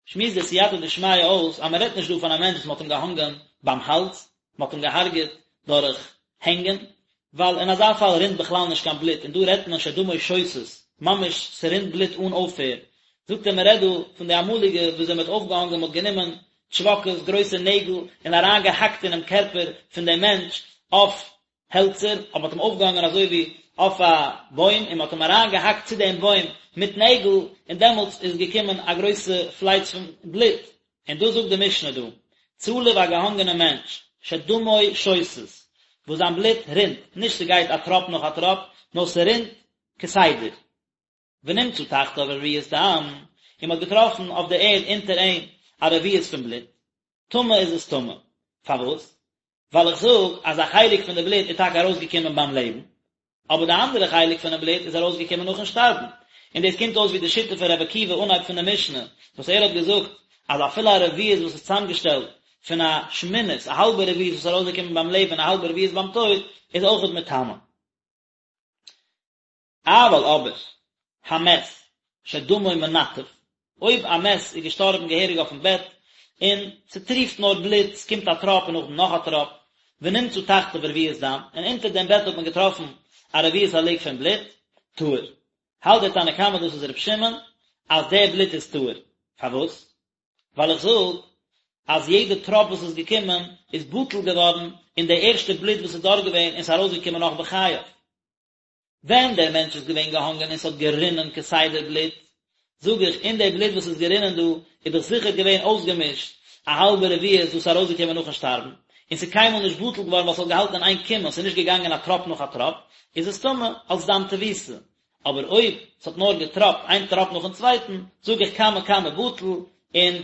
שמועסט די סייעתא דשמיא אויס אז מען רעדט נישט דא פון א מענטש וואס מען האט אים געהאנגען ביים האלז, מען האט אים געהארגעט דורך הענגען, ווייל אין אזא פאל רינט בכלל נישט קיין בלוט, און דא רעדט מען שדמו שותת, ממש ס'רינט בלוט אן אויפהער. זאגט ער מען רעדט דא פון די אמאליגע וויאזוי מען האט אויפגעהאנגען מען האט גענומען טשוואקעס גרויסע נעגל און אריין געהאקט אינעם קערפער פון דעם מענטש אויף העלצער, אבער מען האט אים אויפגעהאנגען אזוי ווי אויף א בוים און מען האט אים אריין געהאקט צו דעם בוים מיט נעגל און דעמאלטס איז געקומען א גרויסע פלייץ פון בלוט, און דאס זאגט די משנה דא, צלוב א געהאנגענע מענטש, שדמו שותת, וואס זיין בלוט רינט, נישט ס'גייט א טראפ נאך א טראפ, נאר ס'רינט כסדר. ונמצא תחתיו רביעית דם, און מ'האט געטראפן אויף די ערד אונטער אים א רביעית פון בלוט, טמא איז עס טמא. פארוואס? ווייל איך זאג אז א חלק פון די בלוט איז טאקע ארויסגעקומען ביים לעבן, אבער די אנדערע חלק פונעם בלוט איז ארויסגעקומען נאכן שטארבן. און דאס קומט אויס ווי די שיטה פון רבי עקיבא אנהייב פון די משנה, וואס ער האט געזאגט אז אפילו א רביעית וואס איז צוזאמגעשטעלט פון א שמינית, א האלבע רביעית וואס איז ארויסגעקומען ביים לעבן און א האלבע רביעית ביים טויט, איז אויכעט מטמא. אבל אבער, המת, שדמו מנטף, אויב א מת איז געשטארבן געהעריג אויפן בעט, און ס'טריפט נאר בלוט, ס'קומט א טראפ און נאכדעם נאך א טראפ, ונמצא תחתיו רביעית דם, און אונטער דעם בעט האט מען געטראפן א רביעית הלוג פון בלוט, טהור. האלט דער תנא קמא דאס איז ר' שמעון, אז דער בלוט איז טהור. פארוואס? ווייל איך זאג אז יעדע טראפ וואס איז געקומען איז בטל געווארן אין די ערשטע בלוט וואס איז דארט געווען און ס'איז ארויסגעקומען נאך בחייו. ווען דער מענטש איז געווען געהאנגען און ס'האט גערינען כסדר בלוט, זאג איך, אין די בלוט וואס איז גערינען דא, איז דאך זיכער געווען אויסגעמישט א האלבע רביעית וואס איז ארויסגעקומען נאכן שטארבן, און ס'איז קיינמאל נישט בטל געווארן ווייל ס'האט געהאלטן אין איין קומען, ס'איז נישט געגאנגען א טראפ נאך א טראפ, איז עס טמא אלס דם תבוסה. אבער אויב ס'האט נאר געטראפט איין טראפ נאכן צווייטן, זאג איך קמא קמא בטל, און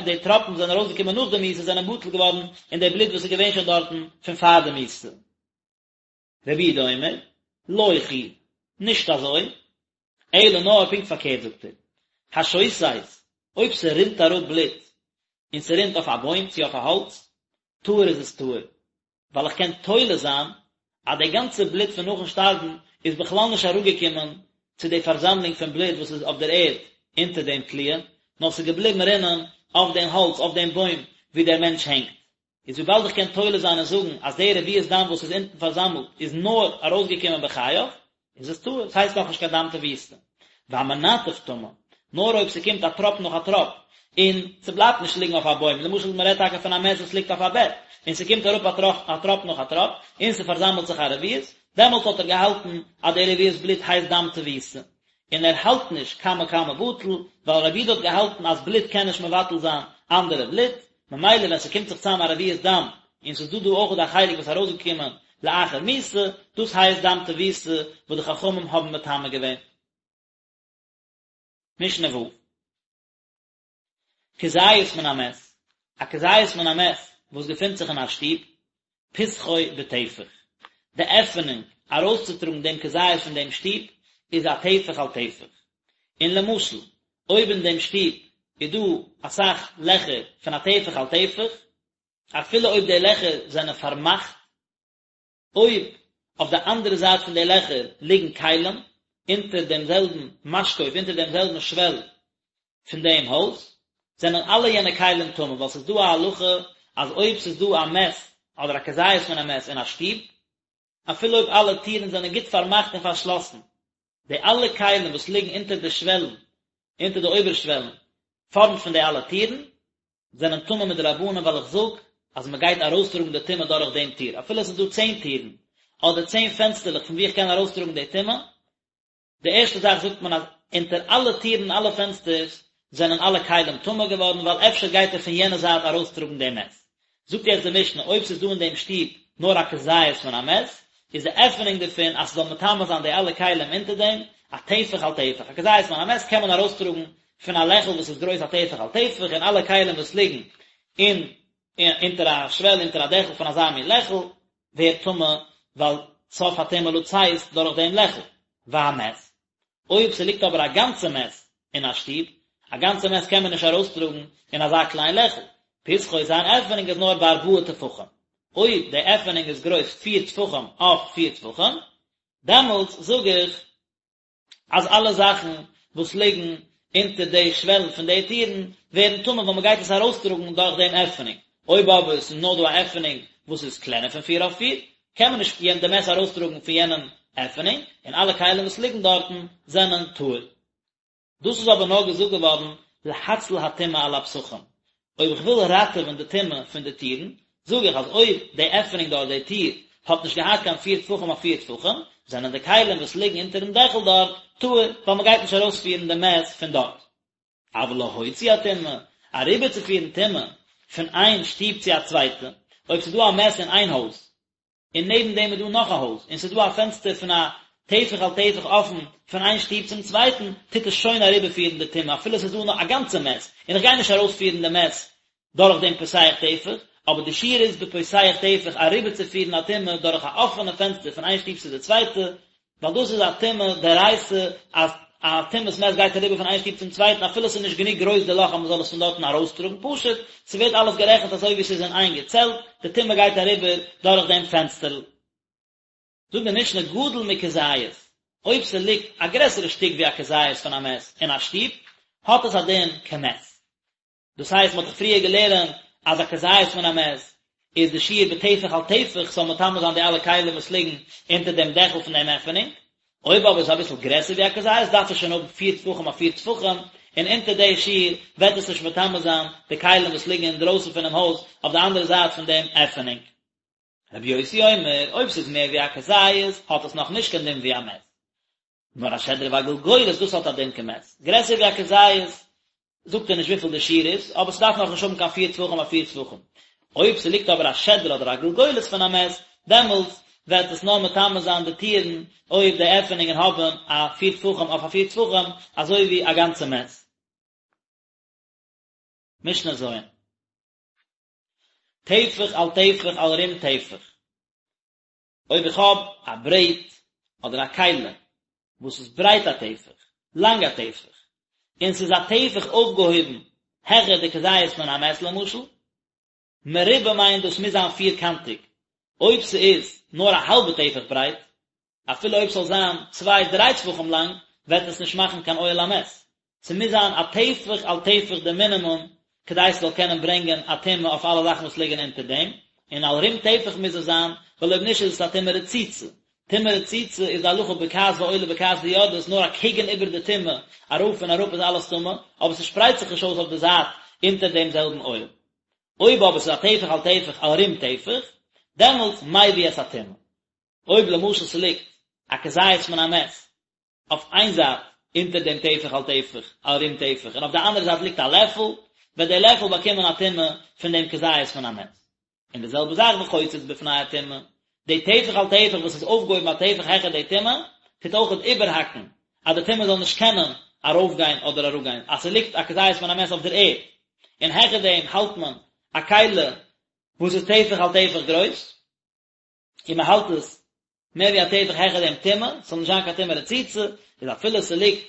די טראפן וואס זענען ארויסגעקומען נאך די מיתה זענען בטל געווארן אין די בלוט וואס איז געווען שוין דארטן פון פאר די מיתה. רבי יהודה אומר, לא כי, נישט אזוי, אלא נאר פונקט פארקערט זאגט ער, השותת, אויב ס'רינט אראפ בלוט, און ס'רינט אויף א בוים צו אויף א האלץ, טהור איז עס טהור, ווייל איך קען תולה זיין אז די גאנצע בלוט פון נאכן שטארבן איז בכלל נישט אראפגעקומען צו די פארזאמלונג פון בלוט וואס איז אויף דער ערד אונטער דעם תליה, נאר ס'איז געבליבן רינען אויף דעם האלץ, אויף דעם בוים וואו דער מענטש הענגט. איז וויבאלד איך קען תולה זיין און זאגן אז די רביעית דם וואס איז אונטן פארזאמלט איז נאר ארויסגעקומען בחייו, איז עס טהור, עס הייסט נאכנישט קיין דם תבוסה. והמנטף טמא, נאר אויב ס'קומט א טראפ נאך א טראפ, און ס'בלייבט נישט ליגן אויף א בוים, למשל מ'רעדט טאקע פון א מת וואס ליגט אויף א בעט, און ס'קומט אראפ א טראפ א טראפ נאך א טראפ, און ס'פארזאמלט זיך א רביעית, דעמאלט האט ער געהאלטן אז די רביעית בלוט הייסט דם תבוסה. און ער האלט נישט קמא קמא בטל, ווייל רבי יהודה האט געהאלטן אז בלוט קען נישט מבטל זיין אנדערע בלוט, ממילא ווען ס'קומט זיך צאם א רביעית דם, און ס'איז דא דא אויך א חלק וואס איז ארויסגעקומען לאחר מיתה, דאס הייסט דם תבוסה וואס די חכמים האבן מטמא געווען. משנה ו'. כזית מן המת, א כזית מן המת וואס געפינט זיך אין א שטוב, פתחו בטפח, די עפענונג ארויסצוטראגן דעם כזית פון דעם שטוב איז א טפח על טפח, און למשל אויב אין דעם שטוב איז דא אסאך לעכער פון א טפח על טפח, אפילו אויב די לעכער זענען פארמאכט, אויב אויף די אנדערע זייט פון די לעכער ליגן כלים, אונטער דעם זעלבן משקוף, אונטער דעם זעלבן שוועל פון דעם הויז, זענען אלע יענע כלים טמא, ווייל ס'איז דא א הלכה אז אויב ס'איז דא א מת אדער א כזית פון א מת אין א שטוב, אפילו אויב אלע טירן זענען גוט פארמאכט און פארשלאסן, די אלע כלים וואס ליגן אונטער די שוועלן, אונטער די אויבערשוועלן, פארנט פון די אלע טירן, זענען טמא מדרבנן ווייל איך זאג אז מען גייט ארויסטראגן די טומאה דורך דעם טיר, אפילו עס איז דא צען טירן, אדער צען פענסטערלעך פון וואו איך קען ארויסטראגן די טומאה, די ערשטע זאך זאגט מען אז אונטער אלע טירן און אלע פענסטערס זענען אלע כלים טמא געווארן ווייל אפשר גייט ער פון יענע זייט ארויסטראגן דעם מת. זאגט יעצט די משנה אויב ס'איז דא אין דעם שטוב נאר א כזית פון א מת, איז די עפענונג דערפון אז ס'זאל מטמא זיין די אלע כלים אונטער דעם, א טפח על טפח, א כזית פון א מת קען מען ארויסטראגן פון א לעכל וואס איז גרויס א טפח על טפח און אלע כלים וואס ליגן אין אונטער א שוועל אונטער א דעכל פון אזא מין לעכל ווערט טמא ווייל סוף הטומאה לצאת דורך דעם לעכל, והמת, אויב ס'ליגט אבער א גאנצע מת אין א שטוב, א גאנצע מת קען מען נישט ארויסטראגן אין אזא קליין לעכל, פתחו זיין עפענונג איז נאר בארבעה טפחים, אויב די עפענונג איז גרויס פיר טפחים אויף פיר טפחים, דעמאלטס זאג איך אז אלע זאכן וואס ליגן אונטער די שוועלן פון די טירן ווערן טמא ווייל מ'גייט עס ארויסטראגן דורך דעם עפענונג, אויב אבער עס איז נאר דא א עפענונג וואס איז קלענער פון פיר אויף פיר, קען מען נישט די מת ארויסטראגן פון יענעם עפענונג, און אלע כלים וואס ליגן דארטן זענען טהור. דאס איז אבער נאר געזאגט געווארן להציל הטומאה על הפתחים, אויב איך וויל ראטעווען די טומאה פון די טירן, זאג איך אז אויב די עפענונג דארט, די טיר, האט נישט געהאט קיין פיר טפחים אויף פיר טפחים, זענען די כלים וואס ליגן אונטערן דעכל דארט טהור, ווייל מען גייט נישט ארויספירן די מת פון דארט. אבל להוציא הטומאה, אריבערצופירן טומאה פון איין שטוב צו א צווייטע, אויב ס'איז דא א מת אין איין הויז, און נעבן דעם איז דא נאך א הויז, און ס'איז דא א פענסטער פון א טפח על טפח אפן פון איין שטוב צום צווייטן, טוט עס שוין אריבערפירן די טומאה אפילו ס'איז דא נאך א גאנצע מת, און איך גיי נישט ארויספירן די מת דורך דעם פותח טפח, אבער די שיעור איז בפותח טפח אריבערצופירן א טומאה דורך א אפענע פענסטער פון איין שטוב צו די צווייטע, ווייל דאס איז א טומאה דאורייתא אז א טומאת מת גייט אריבער פון איין שטוב צום צווייטן אפילו ס'איז נישט גענוג גרויס די לאך אז מ'זאל עס פון דארטן ארויסטראגן פשוט ס'ווערט אלעס גערעכנט אזוי ווי ס'איז אין איין געצעלט די טומאה גייט אריבער דורך דעם פענסטערל. זאגט די משנה גדול מכזית, אויב ס'ליגט א גרעסערע שטיק ווי א כזית פון א מת אין א שטוב האט עס א דין כמת. דאס הייסט מ'האט דאך פריער געלערנט אז א כזית פון א מת איז די שיעור בטפח על טפח ס'זאל מטמא זיין די אלע כלים וואס ליגן אונטער דעם דעכל פון דעם עפענונג, אויב אבער איז אביסל גרעסער ווי א כזית דארף עס שוין האבן פיר טפחים אויף פיר טפחים, און אונטער די שיעור וועט עס נישט מטמא זיין די כלים וואס ליגן אינדרויסן פונעם הויז אויף די אנדערע זייט פון דעם עפענונג. רבי יוסי אומר, אויב ס'איז מער ווי א כזית האט עס נאך נישט קיין דין ווי א מת. נאר השדרה והגלגולת דאס האט א דין כמת, גרעסער ווי א כזית, זאגט ער נישט וויפיל די שיעור איז, אבער ס'דארף נאך נישט האבן קיין פיר טפחים אויף פיר טפחים. אויב ס'ליגט אבער א שדרה אדער א גלגולת פון א מת, דעמאלטס וועט עס נאר מטמא זיין די טירן אויב די עפענונגען האבן א פיר טפחים אויף א פיר טפחים, אזוי ווי א גאנצע מת. משנה ז'. טפח על טפח על רום טפח. אויב איך האב א ברעט אדער א כלי וואס איז ברייט א טפח, לאנג א טפח, און ס'איז א טפח אויפגעהויבן העכער די כזית מן המת למשל, מרובע מיינט דאס מוז זיין פירקאנטיג, אויב ס'איז נאר א האלבע טפח ברייט, אפילו אויב ס'זאל זיין צוויי דריי טפחים לאנג, וועט עס נישט מאכן קיין אוהל המת. ס'מוז זיין א טפח על טפח די מינימום כדי ס'זאל קענען ברענגען א טומאה אויף אלע זאכן וואס ליגן אונטער דעם, און על רום טפח מוז עס זיין, ווייל אויב נישט איז עס א טומאה רצוצה. טומאה רצוצה איז די הלכה בוקעת ועולה בוקעת ויורדת נאר אקעגן איבער די טומאה, ארויף און אראפ איז אלעס טמא, אבער ס'שפרייט זיך נישט אויס אויף די זייט אונטער דעם זעלבן אוהל. אויב אבער ס'איז א טפח על טפח על רום טפח, דעמאלטס מביא את הטומאה. אויב למשל ס'ליגט א כזית מן המת אויף איין זייט אונטער דעם טפח על טפח על רום טפח און אויף די אנדערע זייט ליגט א לעפל, וועט דער לעפל באקומען א טומאה פון דעם כזית מן המת. און די זעלבע זאך וחוצץ בפני הטומאה, די טפח על טפח וואס איז אויפגעהויבן א טפח העכער די טומאה, טוט אויכעט איבערהאקן אז די טומאה זאל נישט קענען ארויפגיין אדער אראפגיין, אז ס'ליגט א כזית מן המת אויף דער ערד און העכער דעם האלט מען א כלי וואס איז טפח על טפח גרויס, און מען האלט עס מער ווי א טפח העכער דעם טומאה, ס'זאל נישט זיין קיין טומאה רצוצה, איז אפילו ס'ליגט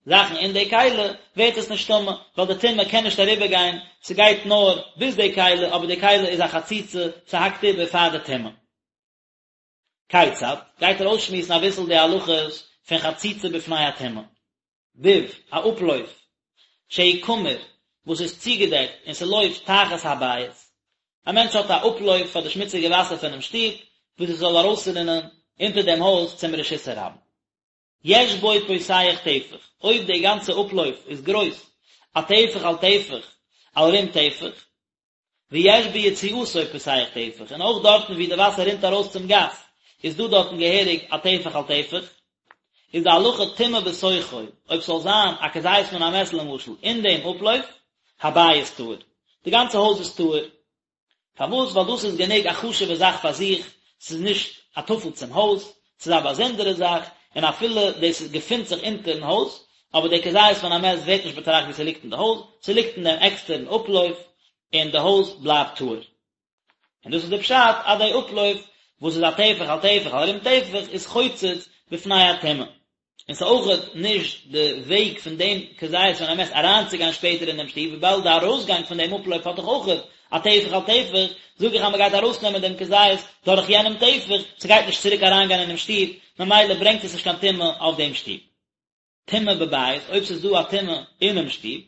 זאכן אין די כלי, ווערט עס נישט טמא, ווייל די טומאה קען נישט אריבער גיין, ס'גייט נאר ביז די כלי, אבער די כלי איז א חציצה, ס'האקט איבער פאר די טומאה. כיצד, גייט ער אויסשמועסן אביסל די הלכות פון חציצה בפני הטומאה. ביב, א אפלויף, שהוא קמור, וואס איז צוגעדעקט און ס'לויפט תחת הבית. א מענטש האט א אפלויף פאר די שמוציגע וואסער פונעם שטוב, וואס עס זאל ארויסרינען אונטער דעם הויז צום רשות הרבים. יש בו פותח טפח, אויב די גאנצע אפלויף איז גרויס א טפח על טפח על רום טפח, ויש ביציאתו פותח טפח, און אויך דארטן וואו די וואסער רינט ארויס צום גאס איז דא דארטן געהעריג א טפח על טפח, איז די הלכה טומאה בתוכו, אויב ס'זאל זיין א כזית מן המת למשל אין דעם אפלויף, הבית טהור, די גאנצע הויז איז טהור. פארוואס? ווייל דאס איז גענוג א חשוב'ע זאך פאר זיך, ס'איז נישט א טפל צום הויז, ס'איז א באזונדערע זאך, און אפילו דאס געפינט זיך אונטערן הויז, אבער דער כזית מן המת ווערט נישט באטראכט ווי ס'ליגט אין די הויז, ס'ליגט אין דעם עקסטערן אפלויף, און די הויז בלייבט טהור. און דאס איז די פשט אז די אפלויף וואס איז א טפח על טפח על רום טפח איז חוצץ בפני הטומאה. און ס'איז אויכעט נישט די וועג פון דעם כזית מן המת אריינצוגיין שפעטער אין דעם שטוב, וויבאלד די ארויסגאנג פון דעם אפלויף האט דאך אויכעט א טפח על טפח, זאג איך אז מ'גייט ארויסנעמען דעם כזית דורך יענעם טפח, ס'גייט נישט צוריק אריינגיין אינעם שטוב, ממילא ברענגט עס נישט קיין טומאה אויף דעם שטוב. טומאה בבית, אויב ס'איז דא א טומאה אינעם שטוב,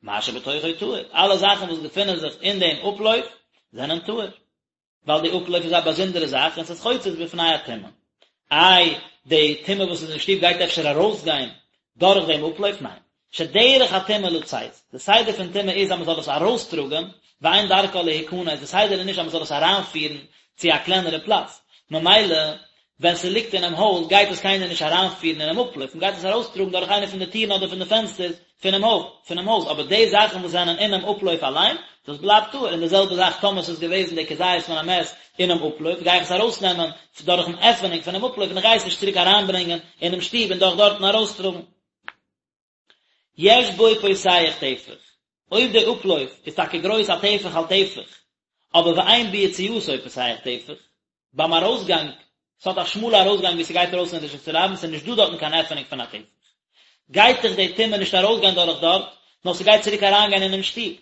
מה שבתוכו טהור, אלע זאכן וואס געפינען זיך אין דעם אפלויף זענען טהור. ווייל די אפלויף איז א באזונדערע זאך און ס'איז חוצץ בפני הטומאה. איי, די טומאה וואס איז אין שטוב גייט אפשר ארויסגיין דורך דעם אפלויף? ניין. שדרך הטומאה לצאת, די סדר פון טומאה איז אז מען זאל עס ארויסטראגען, ואין דרכה להיכנס, די סדר איז נישט אז מען זאל עס אריינפירן צו א קלענערע פלאץ, ממילא ווען ס'ליגט אינעם הויז גייט עס קיינער נישט אריינפירן אינעם אפלויף, מען גייט עס ארויסטראגן דורך איינע פון די טירן אדער פון די פענסטערס פונעם הויף, פונעם הויז, אבער די זאכן וואס זענען אינעם אפלויף אליין, דאס בלייבט טהור, און די זעלבע זאך טאמער ס'איז געוועזן די כזית מן המת אינעם אפלויף, גיי איך עס ארויסנעמען דורכן עפענונג פונעם אפלויף און איך גיי עס נישט צוריק אריינברענגען אינעם שטוב און דורך דארטן ארויסטראגן. יש בו פותח טפח, אויב די אפלויף איז טאקע גרויס א טפח על טפח, אבער ואין ביציאתו פותח טפח, ביים ארויסגאנג, ס'האט א שמאלע ארויסגאנג ווי ס'גייט ארויס אין רשות הרבים, ס'איז נישט דא דארטן קיין עפענונג פון א טפח, גייט דאך די טומאה נישט ארויסגיין דורך דארט, נאר ס'גייט צוריק אריינגיין אינעם שטוב.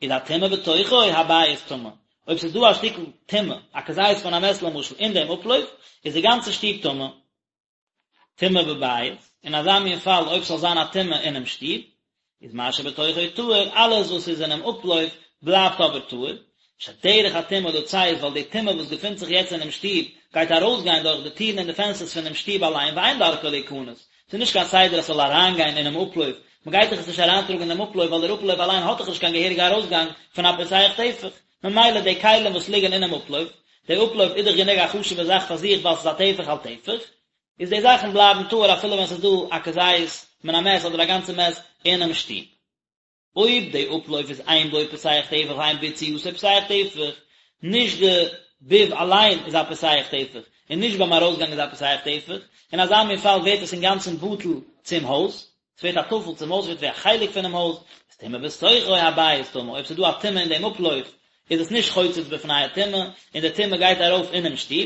איז הטומאה בתוכו, הבית טמא. אויב ס'איז דא א שטיקל טומאה, א כזית מן המת למשל, אין דעם אפלויף, איז די גאנצע שטוב טמא. טומאה בבית, אין אזא מין פאל אויב ס'זאל זיין א טומאה אינעם שטוב, איז מה שבתוכו טהור, אלעס וואס איז אינעם אפלויף בלייבט אבער טהור, שדרך הטומאה לצאת, ווייל די טומאה וואס געפינט זיך יעצט אינעם שטוב, גייט ארויסגיין דורך די טירן און די פענסטערס פונעם שטוב אליין, ואין דרכה להיכנס, ס'איז נישט קיין סדר אז ס'זאל אריינגיין אינעם אפלויף, מ'גייט דאך עס נישט אריינטראגן אינעם אפלויף ווייל דער אפלויף אליין האט דאך נישט קיין געהעריגע ארויסגאנג פון א פותח טפח, ממילא די כלים וואס ליגן אינעם אפלויף, די אפלויף איז דאך גענוג א חשוב'ע זאך פאר זיך ווייל ס'איז א טפח על טפח, איז די זאכן בלייבן טהור אפילו ווען ס'איז דא א כזית מן המת אדער א גאנצע מת אינעם שטוב. אויב די אפלויף איז אין בו פותח טפח ואין ביציאתו פותח טפח, נישט די ביב אליין איז א פותח טפח, און נישט ביים ארויסגאנג איז א פותח טפח, אין אזא מין פאל ווערט עס אינגאנצן בטל צום הויז, ס'ווערט א טפל צום הויז, ס'ווערט ווי א חלק פונעם הויז, איז טומאה בתוכו הבית טמא, אויב ס'איז דא א טומאה אין דעם אפלויף, איז עס נישט חוצץ בפני הטומאה, און די טומאה גייט ארויף אינעם שטוב,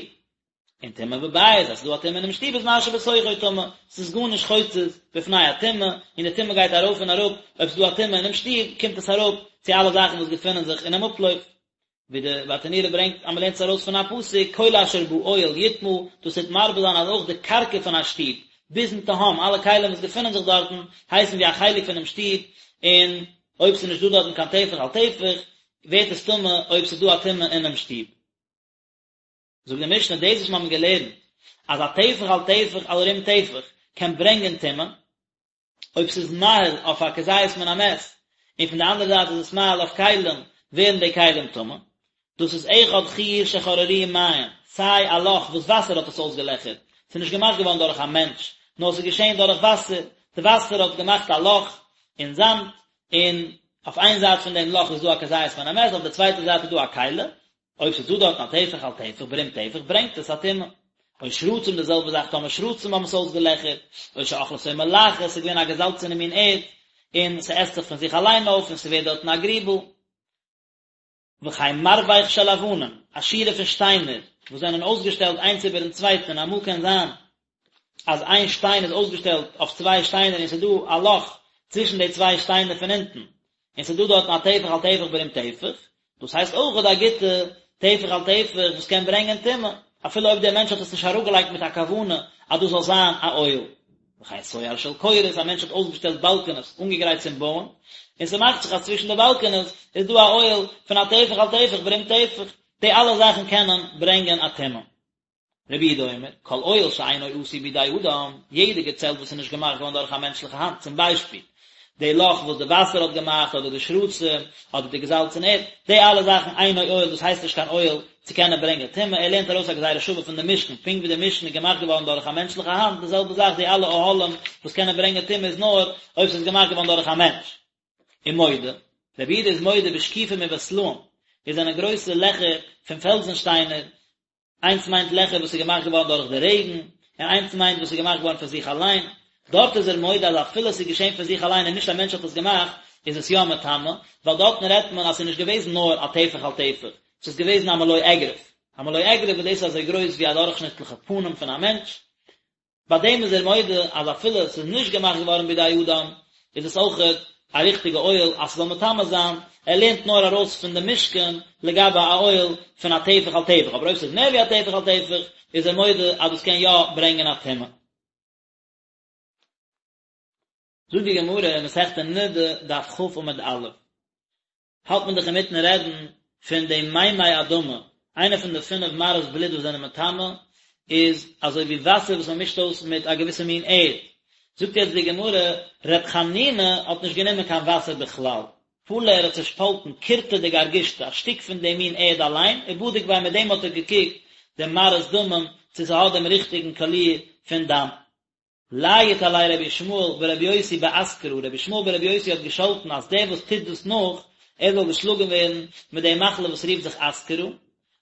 און טומאה בבית, אז ס'איז דא א טומאה אינעם שטוב איז מה שבתוכו טמא, ס'איז גארנישט חוצץ בפני הטומאה, און די טומאה גייט ארויף און אראפ, אויב ס'איז דא א טומאה אינעם שטוב, קומט עס אראפ צו אלע זאכן וואס געפינען זיך אינעם אפלויף. ווי די ברטנורא ברענגט אז מ'לערנט עס ארויס פון א פסוק, כל אשר באוהל יטמא, דאס טוט מרבה זיין אז אויך די קרקע פון א שטוב, ביזן תהום, אלע כלים וואס געפינען זיך דארטן, הייסן ווי א חלק פונעם שטוב, און אויב ס'איז נישט דא דארטן קיין טפח על טפח, ווערט עס טמא אויב ס'איז דא א טומאה אינעם שטוב. זאגט די משנה, דאס וואס מיר האבן געלערנט אז א טפח על טפח על רום טפח קען ברענגען טומאה, אויב ס'איז מאהיל אויף א כזית מן המת, און פון די אנדערע זייט איז עס מאהיל אויף כלים, ווערן די כלים טמא. דאס איז אחד חור שחררוהו מים, סיי א לאך וואס וואסער האט עס אויסגעלעכערט, ס'איז נישט געמאכט געווארן דורך א מענטש, נאר ס'איז געשען דורך וואסער, די וואסער האט געמאכט א לאך אין זאמד, און אויף איין זייט פון דעם לאך איז דא א כזית מן המת, אויף די צווייטע זייט איז דא א כלי, אויב ס'איז דא דארטן א טפח על טפח ברום טפח ברענגט עס א טומאה. או שרצים די זעלבע זאך טאמער שרצים האבן עס אויסגעלעכערט, או שאכלתו מלחת ס'איז געווען א געזאלצענע מין ערד און ס'עסט זיך פון זיך אליין אויף און ס'ווערט דארטן א גריבל. וכן מרבך של אבנים, א שורה פון שטיינער וואס זענען אויסגעשטעלט איינס איבערן צווייטן און אמאל קען זיין אז איין שטיין איז אויסגעשטעלט אויף צוויי שטיינער און ס'איז דא א לאך צווישן די צוויי שטיינער פון אונטן און ס'איז דא דארטן א טפח על טפח ברום טפח, דאס הייסט אויכעט א גוטע טפח על טפח וואס קען ברענגען טומאה, אפילו אויב דער מענטש האט עס נישט אראפגעלייגט מיט א כוונה אז דאס זאל זיין א אוהל. וכן סואר של קורות, א מענטש האט אויסגעשטעלט באלקענעס אנגעגרייט צום בויען, און ס'מאכט זיך אז צווישן די באלקענעס איז דא א אוהל פון א טפח על טפח ברום טפח, די אלע זאכן קענען ברענגען א טומאה. רבי יהודה אומר, כל אוהל שאינו עשוי בידי אדם, יעדע געצעלט וואס איז נישט געמאכט געווארן דורך א מענטשליכע האנט, צום ביישפיל, די לאך וואס די וואסער האט געמאכט, אדער די שרצים, אדער די געזאלצענע ערד, די אלע זאכן אינו אוהל, דאס הייסט נישט קיין אוהל צו קענען ברענגען טומאה, ער לערנט ארויס א גזירה שווה פון די משכן, פונקט ווי די משכן איז געמאכט געווארן דורך א מענטשליכע האנט, די זעלבע זאך די אלע אוהלים וואס קענען ברענגען טומאה איז נאר אויב ס'איז געמאכט געווארן דורך א מענטש. ומודה, רבי יהודה איז מודה בשקיפים ובסלעים, דאס זענען גרויסע לעכער פון פעלזן שטיינער, איינס מיינט לעכער וואס איז געמאכט געווארן דורך די רעגן, און איינס מיינט וואס איז געמאכט געווארן פון זיך אליין. דארט איז ער מודה אז אפילו עס איז געשען פון זיך אליין און נישט א מענטש האט עס געמאכט, איז עס יא מטמא, ווייל דארטן רעדט מען אז עס איז נישט געוועזן נאר א טפח על טפח, עס איז געוועזן א מלא אגרוף. א מלא אגרוף וואס דאס איז אזוי גרויס ווי א דורכשניטליכע פנים פון א מענטש. ביי דעם איז ער מודה אז אפילו עס איז נישט געמאכט געווארן בידי אדם, איז עס אויכעט א ריכטיגע אוהל אז ס'זאל מטמא זיין, ער לערנט נאר ארויס פון די משכן לגבי א אוהל פון א טפח על טפח, אבער אויב ס'איז מער ווי א טפח על טפח איז ער מודה אז דאס קען יא ברענגען א טומאה. זאגט די גמרא אין מסכת נדה דף כ עמוד א', האלט מען דאך אינמיטן רעדן פון די מימי אדמה, איינע פון די פינף מראות בלוט וואס זענען מטמא איז אזוי ווי וואסער וואס מען מישט אויס מיט א געוויסע מין ערד. זאגט יעצט די גמרא, ר' חנינא האט נישט גענומען קיין וואסער בכלל, פלא ער האט צעשפאלטן קורטא דגרגשתא, א שטיק פון דעם מין ערד אליין, ובדיק ביה מיט דעם האט ער געקוקט דעם מראות דמים צו ס'האט דעם ריכטיגן קאליר פון דם. לייט עליה רבי ישמעאל ברבי יוסי באסכרה, רבי ישמעאל ברבי יוסי האט געשאלטן אז דער וואס טוט דאס נאך, ער זאל געשלאגן ווערן מיט די מחלה וואס רופט זיך אסכרה,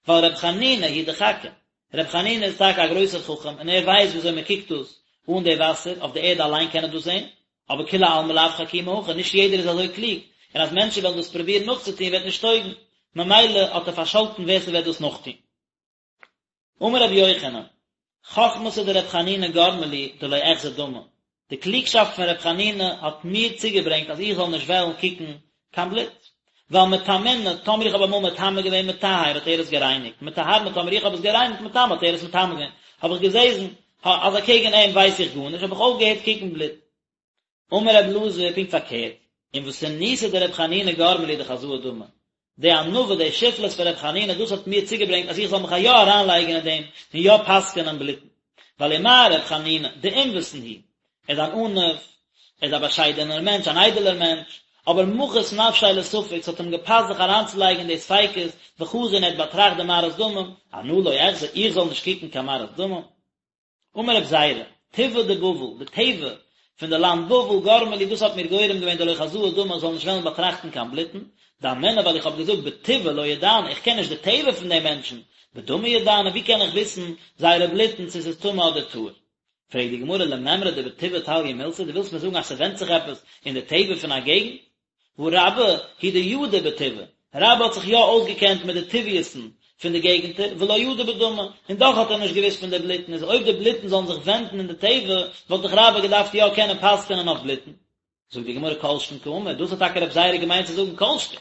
ווייל רבי חנינא הוא דחכים, רבי חנינא איז טאקע א גרויסער חכם און ער ווייסט ווי אזוי מען קוקט דאס אן די וואסער, אויף די ערד אליין קען ער דאס זען, אבער כולי עלמא לאו חכימי הכי, נישט יעדער איז אזוי קלוג, און אז מענטשן וועלן דאס פרובירן נאכצוטון וועט נישט טויגן, ממילא האט ער פארשאלטן ווער ס'וועט דאס נאכטון. אמר רבי יוחנן, חכמתא דרבי חנינא גרמא לי דלא אחזי דמא, די קלוגשאפט פון רבי חנינא האט מיר צוגעברענגט אז איך זאל נישט וועלן קוקן קיין בלוט, ווייל מטמינא, טאמער איך האב אמאל מטמא געווען מטהר האט ער עס גערייניגט, מטהרנא טאמער איך האב עס גערייניגט מטמא האט ער עס מטמא געווען, האב איך געזעזן אז אקעגן אים ווייס איך גארנישט, האב איך אויפגעהערט קוקן בלוט. אמר רב אלעזר, פונקט פארקערט, ענוותנותיה דרבי חנינא גרמא לי דחזאי דמא, די ענווה, די שפלות פון רבי חנינא, דאס האט מיר צוגעברענגט אז איך זאל מיך יא אריינלייגן אין דעם און יא פסק'ענען בלוטן. ווייל ומה רבי חנינא, דענוותן הוא, ער איז אן עניו, ער איז א באשיידענער מענטש, אן איידעלער מענטש, אבער מחית נפשיה לספק, ס'האט אים געפאסט זיך אריינצולייגן אין די ספיקות, וחזא און ער האט באטראכט די מראות דמים, אנא לא אחזי, איך זאל נישט קוקן קיין מראות דמים. אמר רב זירא, טבעא דבבל, די טבע פון די לאנד בבל, גרמא לי, דאס האט מיר גורם געווען דלא חזאי דמא, איך זאל נישט וועלן באטראכטן קיין בלוטן, דאמינא ווייל איך האב געזאגט בטבעא לא ידענא, איך קען נישט די טבע פון די מענטשן, בדמא ידענא, ווי קען איך וויסן זייערע בלוטן צו ס'איז טמא אדער טהור? פרעגט די גמרא למימרא דבטבעא תליא מילתא, דו ווילסט מיר זאגן אז ס'ווענדט זיך עפעס אין די טבע פון א געגנט? והא רבה הוא דידע בטבעא, רבה האט זיך יא אויסגעקענט מיט די טבעיות'ן פון די געגנטער, ולא ידע בדמא, און דאך האט ער נישט געוואוסט פון די בלוטן, איז אויב די בלוטן זאלן זיך ווענדן אין די טבע, וואלט דאך רבה געדארפט יא קענען פסק'ענען אויף בלוטן. זאגט די גמרא כל שכן קאמר, דאס האט טאקע רב זירא געמיינט צו זאגן כל שכן.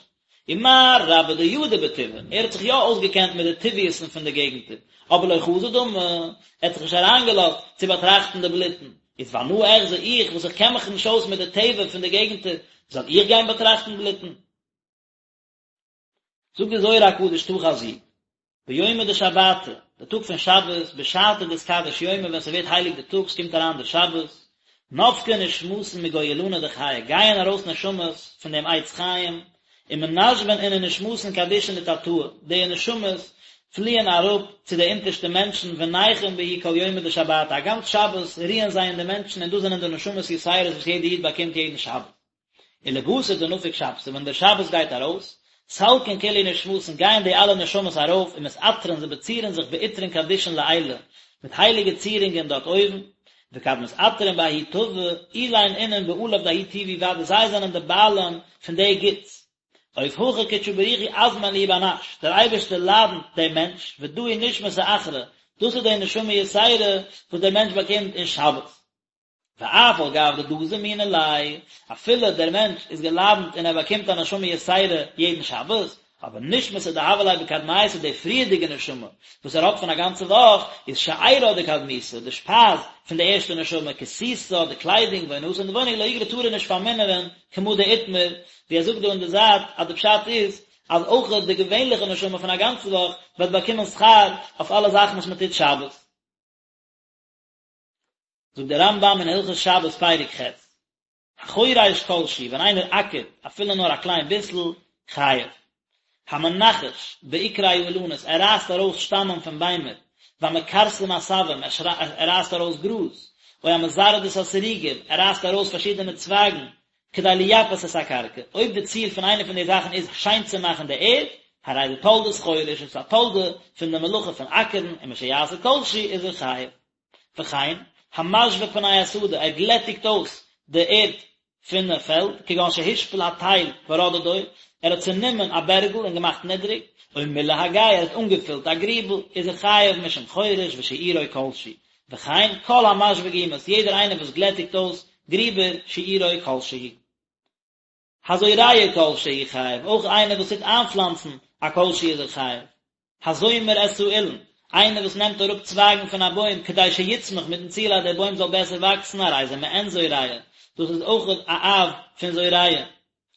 ומה רבה דידע בטבעא, ער האט זיך יא אויסגעקענט מיט די טבעיות'ן פון די געגנטער, אבער לא חזא דמא, ער האט זיך נישט אריינגעלאזט צו באטראכטן די בלוטן, איז ואנא אחזי איך וואס איך קען מיך נישט אויס מיט די טבע פון די געגנטער, זאל איך גיין באטראכטן בלוטן? זאגט די זוהר הקדוש תא חזי, ביומא דשבתא, די טאג פון שבת, בשעתא דאתקדש יומא ווען ס'ווערט הייליג די טאג, ס'קומט אריין דער שבת, נפקי נשמתין מגו אילנא דחיי, גייען ארויס נשמות פון דעם עץ חיים, ומנשבן אינון נשמתין קדישין לתתאי, די נשמות פליען אראפ צו די אונטערשטע מענטשן ונייחין בהו כל יומא דשבתא, א גאנץ שבת רוען זיי אין די מענטשן און דאס זענען די נשמות יתירות וואס יעדער איד באקומט יעדן שבת. ולבתר דנפיק שבתא, ווען דער שבת גייט ארויס, סלקין כולהו נשמתין גייען די אלע נשמות ארויף ומתעטרן זיי באצירן זיך בעטרין קדישין לעילא, מיט הייליגע צירונגען דארט אויבן, וכד מתעטרין בההוא טבא, אלין אינון בעליו דההוא טובא ודאי זיי זענען די בעלים פון די גוטס. אוף הכי קודשא בריך הוא אזמין להו בר נש, דער אייבערשטער לאדנט דעם מענטש, ודא היא נשמתא אחרא, דאס איז די נשמה יתירה וואס דער מענטש באקומט אין שבת. ואף על גב דדא זמינא ליה, אפילו דער מענטש איז געלאדנט און ער באקומט א נשמה יתירה יעדן שבת, אבער נשמתא דהוה ליה בקדמיתא די פריערדיגע נשמה וואס ער האט פון א גאנצע וואך, איז שארה דקדמיתא, די שפייז פון די ערשטע נשמה, כסותה, די קליידונג, ועונתה און די וואוינונג לא יגרע טאר ער נישט פארמינערען, כמה דאיתמר, ווי ער זאגט דא אין די זייט אז די פשט איז אז אויך די געווענליכע נשמה פון א גאנצע וואך וועט באקומען שכר אויף אלע זאכן וואס מען טוט שבת. זאגט דער רמב"ם אין הלכות שבת פרק ח', החורש כל שהוא, ווען איינער אקערט אפילו נאר א קליין ביסל, חייב. המנכש בעיקרי האילנות, ער רייסט ארויס שטאמען פון ביימער, והמכרסם עשבים, ער רייסט ארויס גראז, או המזרד את השריגים, ער רייסט ארויס פארשידענע צווייגן, כדי לייפות את הקרקע, אויב די ציל פון איינע פון די זאכן איז שיין צו מאכן די ערד, הרי זה תולדת חורש, איז עס א תולדה פון די מלאכה פון אקערן, ומשיעשה כל שהוא איז ער חייב. וכן, המשווה פני השדה, ער גלעטיגט אויס די ערד פון פעלד, כגון שהשפיל התל ורדדו, ער האט צענומען א בערגל און געמאכט נידריג, או מילא הגיא, ער האט אנגעפילט א גריבל, איז ער חייב משום חורש ושיעורו כל שהוא. וכן, כל המשווה גומות, יעדער איינער וואס גלעטיגט אויס גריבער, שיעורו כל שהוא. הזורע כל שהוא חייב, אויך איינער וואס טוט איינפלאנצן א כל שהוא איז ער חייב. הזומר את האילן, איינער וואס נעמט אראפ צווייגן פון א בוים כדי שיצמח מיטן ציל אז דער בוים זאל בעסער וואקסן הרי זה מעין זורע, דאס איז אויך א אב פון זורע.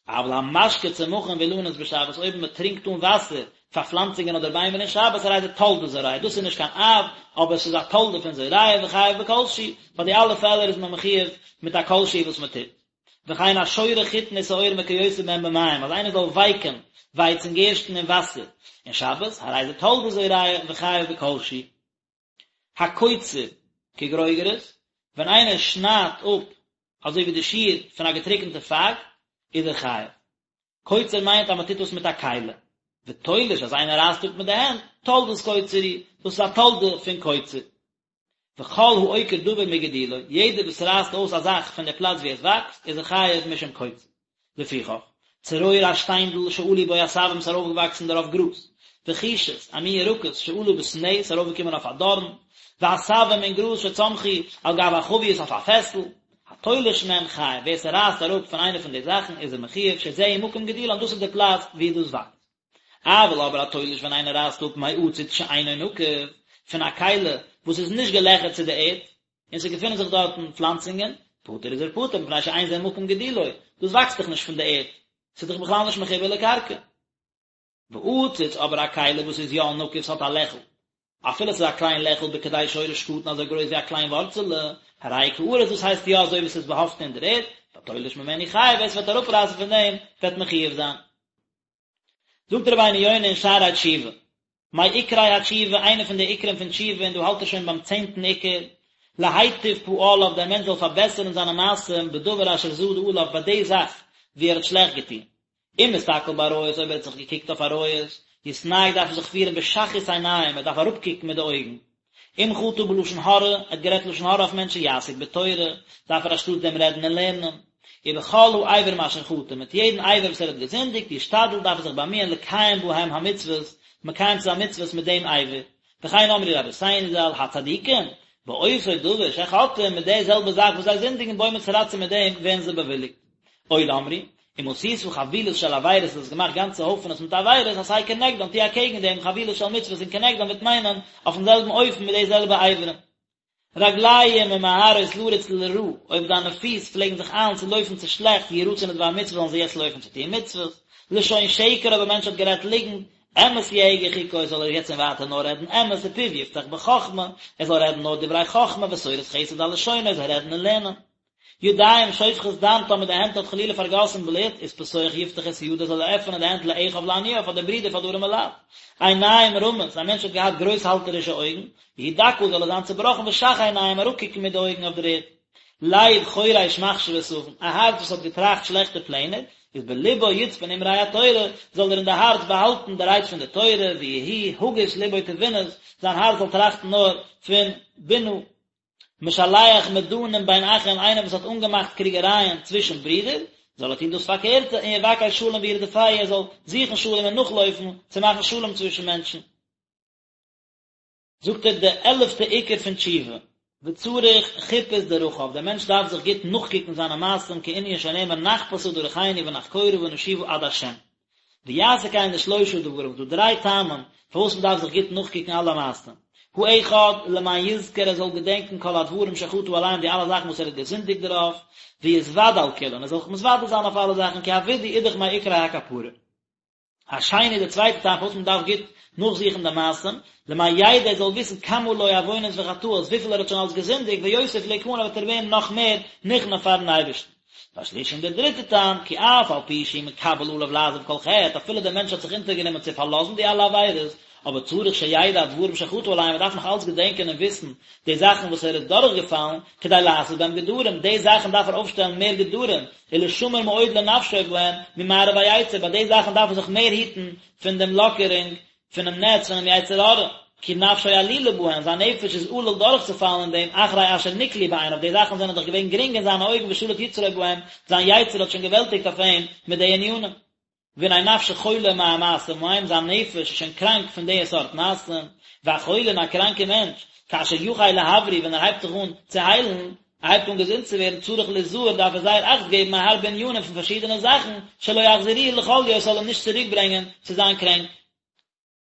אבל המשקה צמחים ואילנות בשבת, אויב מען טרינקט אן וואסער. פאר פלאנצונגען אדער ביימער אין שבת הרי זה תולדת זורע, דאס איז נישט קיין אב, אבער עס איז א תולדה פון זורע וחייב בכל שהוא, פאר די אלע פעלער איז מען מחיוב מיט א כל שהוא וואס מען טוט. וכן השורה חיטין ושעורים וכיוצא בהם במים, אז איינער זאל ווייקען ווייץ און גערשטן אין וואסער אין שבת, הרי זה תולדת זורע וחייב בכל שהוא. הקוצר כגרוגרת, ווען איינער שניידט אפ אזוי ווי די שיעור פון א געטריקענטע פייג, איז ער חייב. קוצר מיינט אז מען טוט דאס מיט א כלי. ותולש אז איינער רייסט אפ מיט די הענט, תולדת קוצר הוא, דאס איז א תולדה פון קוצר. וכל העוקר דבר מגידולו, יעדער וואס רייסט אויס א זאך פון די פלאץ וואו עס וואקסט, איז ער חייב משום קוצר. לפיכך, צרור א שטיינדל שעלו בו עשבים ס'איז ארויפגעוואקסן דערויף גראז, וחישת, א מין ירקות שעלה בסנה ס'איז ארויפגעקומען אויף א דארן, ועשבים און גראז שצמחו על גב החבית אויף א פעסל, התולש מהן חייב, ווער ס'רייסט אראפ פון איינע פון די זאכן איז ער מחיוב שזהו מקום גידולן דאס איז די פלאץ וואו דאס וואקסט. אבל אבער התולש ווען איינער רייסט אפ מעציץ שאינו נקוב, פון א כלי וואס איז נישט געלעכערט צו די ערד, און ס'געפינען זיך דארטן פלאנצונגען, פטור איז ער פטור מפני שאין זה מקום גידולו, דאס וואקסט דאך נישט פון די ערד, ס'איז דאך בכלל נישט מחובר לקרקע. ועציץ אבער א כלי וואס איז יא נקוב ס'האט א לעכל, אפילו ס'איז א קליין לעכל בכדי שורש קטן אזוי גרויס ווי א קליין ווארצעלע, הרי כארץ דאס הייסט יא אזוי ווי ס'איז באהאפטן אין דער ערד, והתולש ממנו חייב ווער ס'וועט אראפרייסן פון דעם וועט מחיוב זיין. זאגט רבינו יונה אין שערי תשובה, מעיקרי התשובה, איינע פון די עיקרים פון תשובה, און דא האלט ער שוין ביים צענטן עיקר, להיטיב פעליו, דער מענטש זאל פארבעסערן זיינע מעשים בדבר אשר זדה עליו, ביי די זאך וואו ער האט שלעכט געטון. אם הסתכל בעריות, אויב ער האט זיך געקוקט אויף עריות, יתנהג דארף ער זיך פירן בשחות עיניים, ער דארף אראפקוקן מיט די אויגן. אם חטא בלשון הרע, ער האט גערעדט לשון הרע אויף מענטשן, יעסוק בתורה, דארף ער אנשטאט דעם רעדן אין לערנען. ובכל האברים אשר חטא, מיט יעדן אבר וואס ער האט געזינדיגט, ישתדל, דארף ער זיך באמיען לקיים בהם המצוות, מקיים צו זיין מצוות מיט דעם אבר. וכן אמרו רבותינו ז"ל, הצדיקים, באותו דבר שחוטאים, מיט די זעלבע זאך וואס זיי זינדיגן בו מתרצים מיט דעם ווערן זיי באוויליגט. עוד אמרו, אם עשית חבילות של עבירות, האסט געמאכט גאנצע הויפענעס מיט עבירות, עשה כנגדן, טו אקעגן דעם חבילות של מצוות און כנגדן וועט מיינען אויפן זעלבן אופן מיט די זעלבע אברים. רגליים ממהרות לרוץ לרעה, אויב דיינע פיס פלעגן זיך איילן צו לויפן צו שלעכטס, ירוצון לדבר מצוה זאלן זיי יעצט לויפן צו טון מצוות. לשון שקר אויב א מענטש האט גערעדט ליגנט, אמת יהגה חוקו זאל ער יעצט און ווייטער נאר רעדן אמת ופיו יפתח בחכמה, ער זאל רעדן נאר דברי חכמה ותורת חסד על לשונו, ער זאל רעדן און לערנען. ידיים שופכות דם טאמער די הענט האט חלילה פארגאסן בלוט, איז פתוח יפתח את ידו זאל ער עפענען די הענט לאחיו לעניו פאר די ברידער פאר די ארימע לייט. עיניים רמות, א מענטש האט געהאט גרויסהאלטערישע אויגן, יהי דכא זאל ער זיין צובראכן ושח עיניים אראפקוקן מיט די אויגן אויף דער ערד. לב חורש מחשבות און, א הארץ וואס האט געטראכט שלעכטע פלענער, איז בלבו יצפון אמרי התורה, זאל ער אין די הארץ באהאלטן די רייד פון די תורה, ויהי הגות לבו תבונות, זיין הארץ זאל טראכטן נאר פון בינה. משלח מדנים בין אחים, איינער וואס האט אנגעמאכט קריגערייען צווישן ברידער, זאל ער טון דאס פארקערטע, און יבקש שלום וירדפהו, ער זאל זוכן שלום און נאכלויפן צו מאכן שלום צווישן מענטשן. זאגט ער די עלעפטע עיקר פון תשובה, וצריך חיפוש דרכיו, דער מענטש דארף זיך גוט נאכקוקן זיינע מעשים כענין שנאמר נחפשה דרכינו ונחקורה ונשובה עד השם. ויעשה כן לשלושה דברים, ס'דא דריי טעמים פארוואס מען דארף זיך גוט נאכקוקן אלע מעשים, האחד, למען יזכור ער זאל געדענקן כל הדברים שחטא עליהם די אלע זאכן וואס ער האט געזינדיגט דערויף, ויתוודה על כולן ער זאל זיך מתוודה זיין אויף אלע זאכן כי הווידוי איז דאך מעיקרי הכפרה. השני די צווייטע טעם פארוואס מען דארף גוט נאכזוכן די מעשים, למען ידע ער זאל וויסן כמה לו עוונות וחטאות וויפיל ער האט שוין אלס געזינדיגט ויוסיף להכנע וועט ער ווערן נאך מער נכנע פארן אייבערשטן. והשלישי און דער דריטער טעם, כי אף על פי שהוא מקבל עליו לעזוב כל חטא, אפילו דער מענטש האט זיך אונטערגענומען צו פארלאזן די אלע עבירות, אבער צריך שידע הדברים שחטא עליהם, ער דארף נאך אלץ געדענקען און וויסן די זאכן וואס ער איז דורכגעפאלן, כדי לעשות בהם גדרים, די זאכן דארף ער אויפשטעלן מער גדרים, ולשמר מאוד לנפשו בהם, ממארב היצר, ביי די זאכן דארף ער זיך מער היטן פון דעם לאקערונג פונעם נעץ פונעם יצר הרע, כי נפשו עלולה בהן, זיין נפש איז עלול דורכצופאלן אין דעם, אחרי אשר נקלו בעיניו, די זאכן זענען דאך געווען גרינג אין זיינע אויגן ושלט יצרו בהם, זיין יצר האט שוין געוועלטיגט אויף אים מיט די ענינים. והנה נפשו חולה מהמעשים ההם, זיין נפש איז שוין קראנק פון די סארט מעשים, והחולה און א קראנקער מענטש, כאשר יחל להבריא, ווען ער הייבט זיך אן צו היילן, ער הייבט אן געזונט צו ווערן, צריך ליזהר, דארף ער זייער אכט געבן מהרבה ענינים פון פארשידענע זאכן, שלא יחזירוהו לחוליו, עס זאל אים נישט צוריק ברענגען צו זיין קרענק.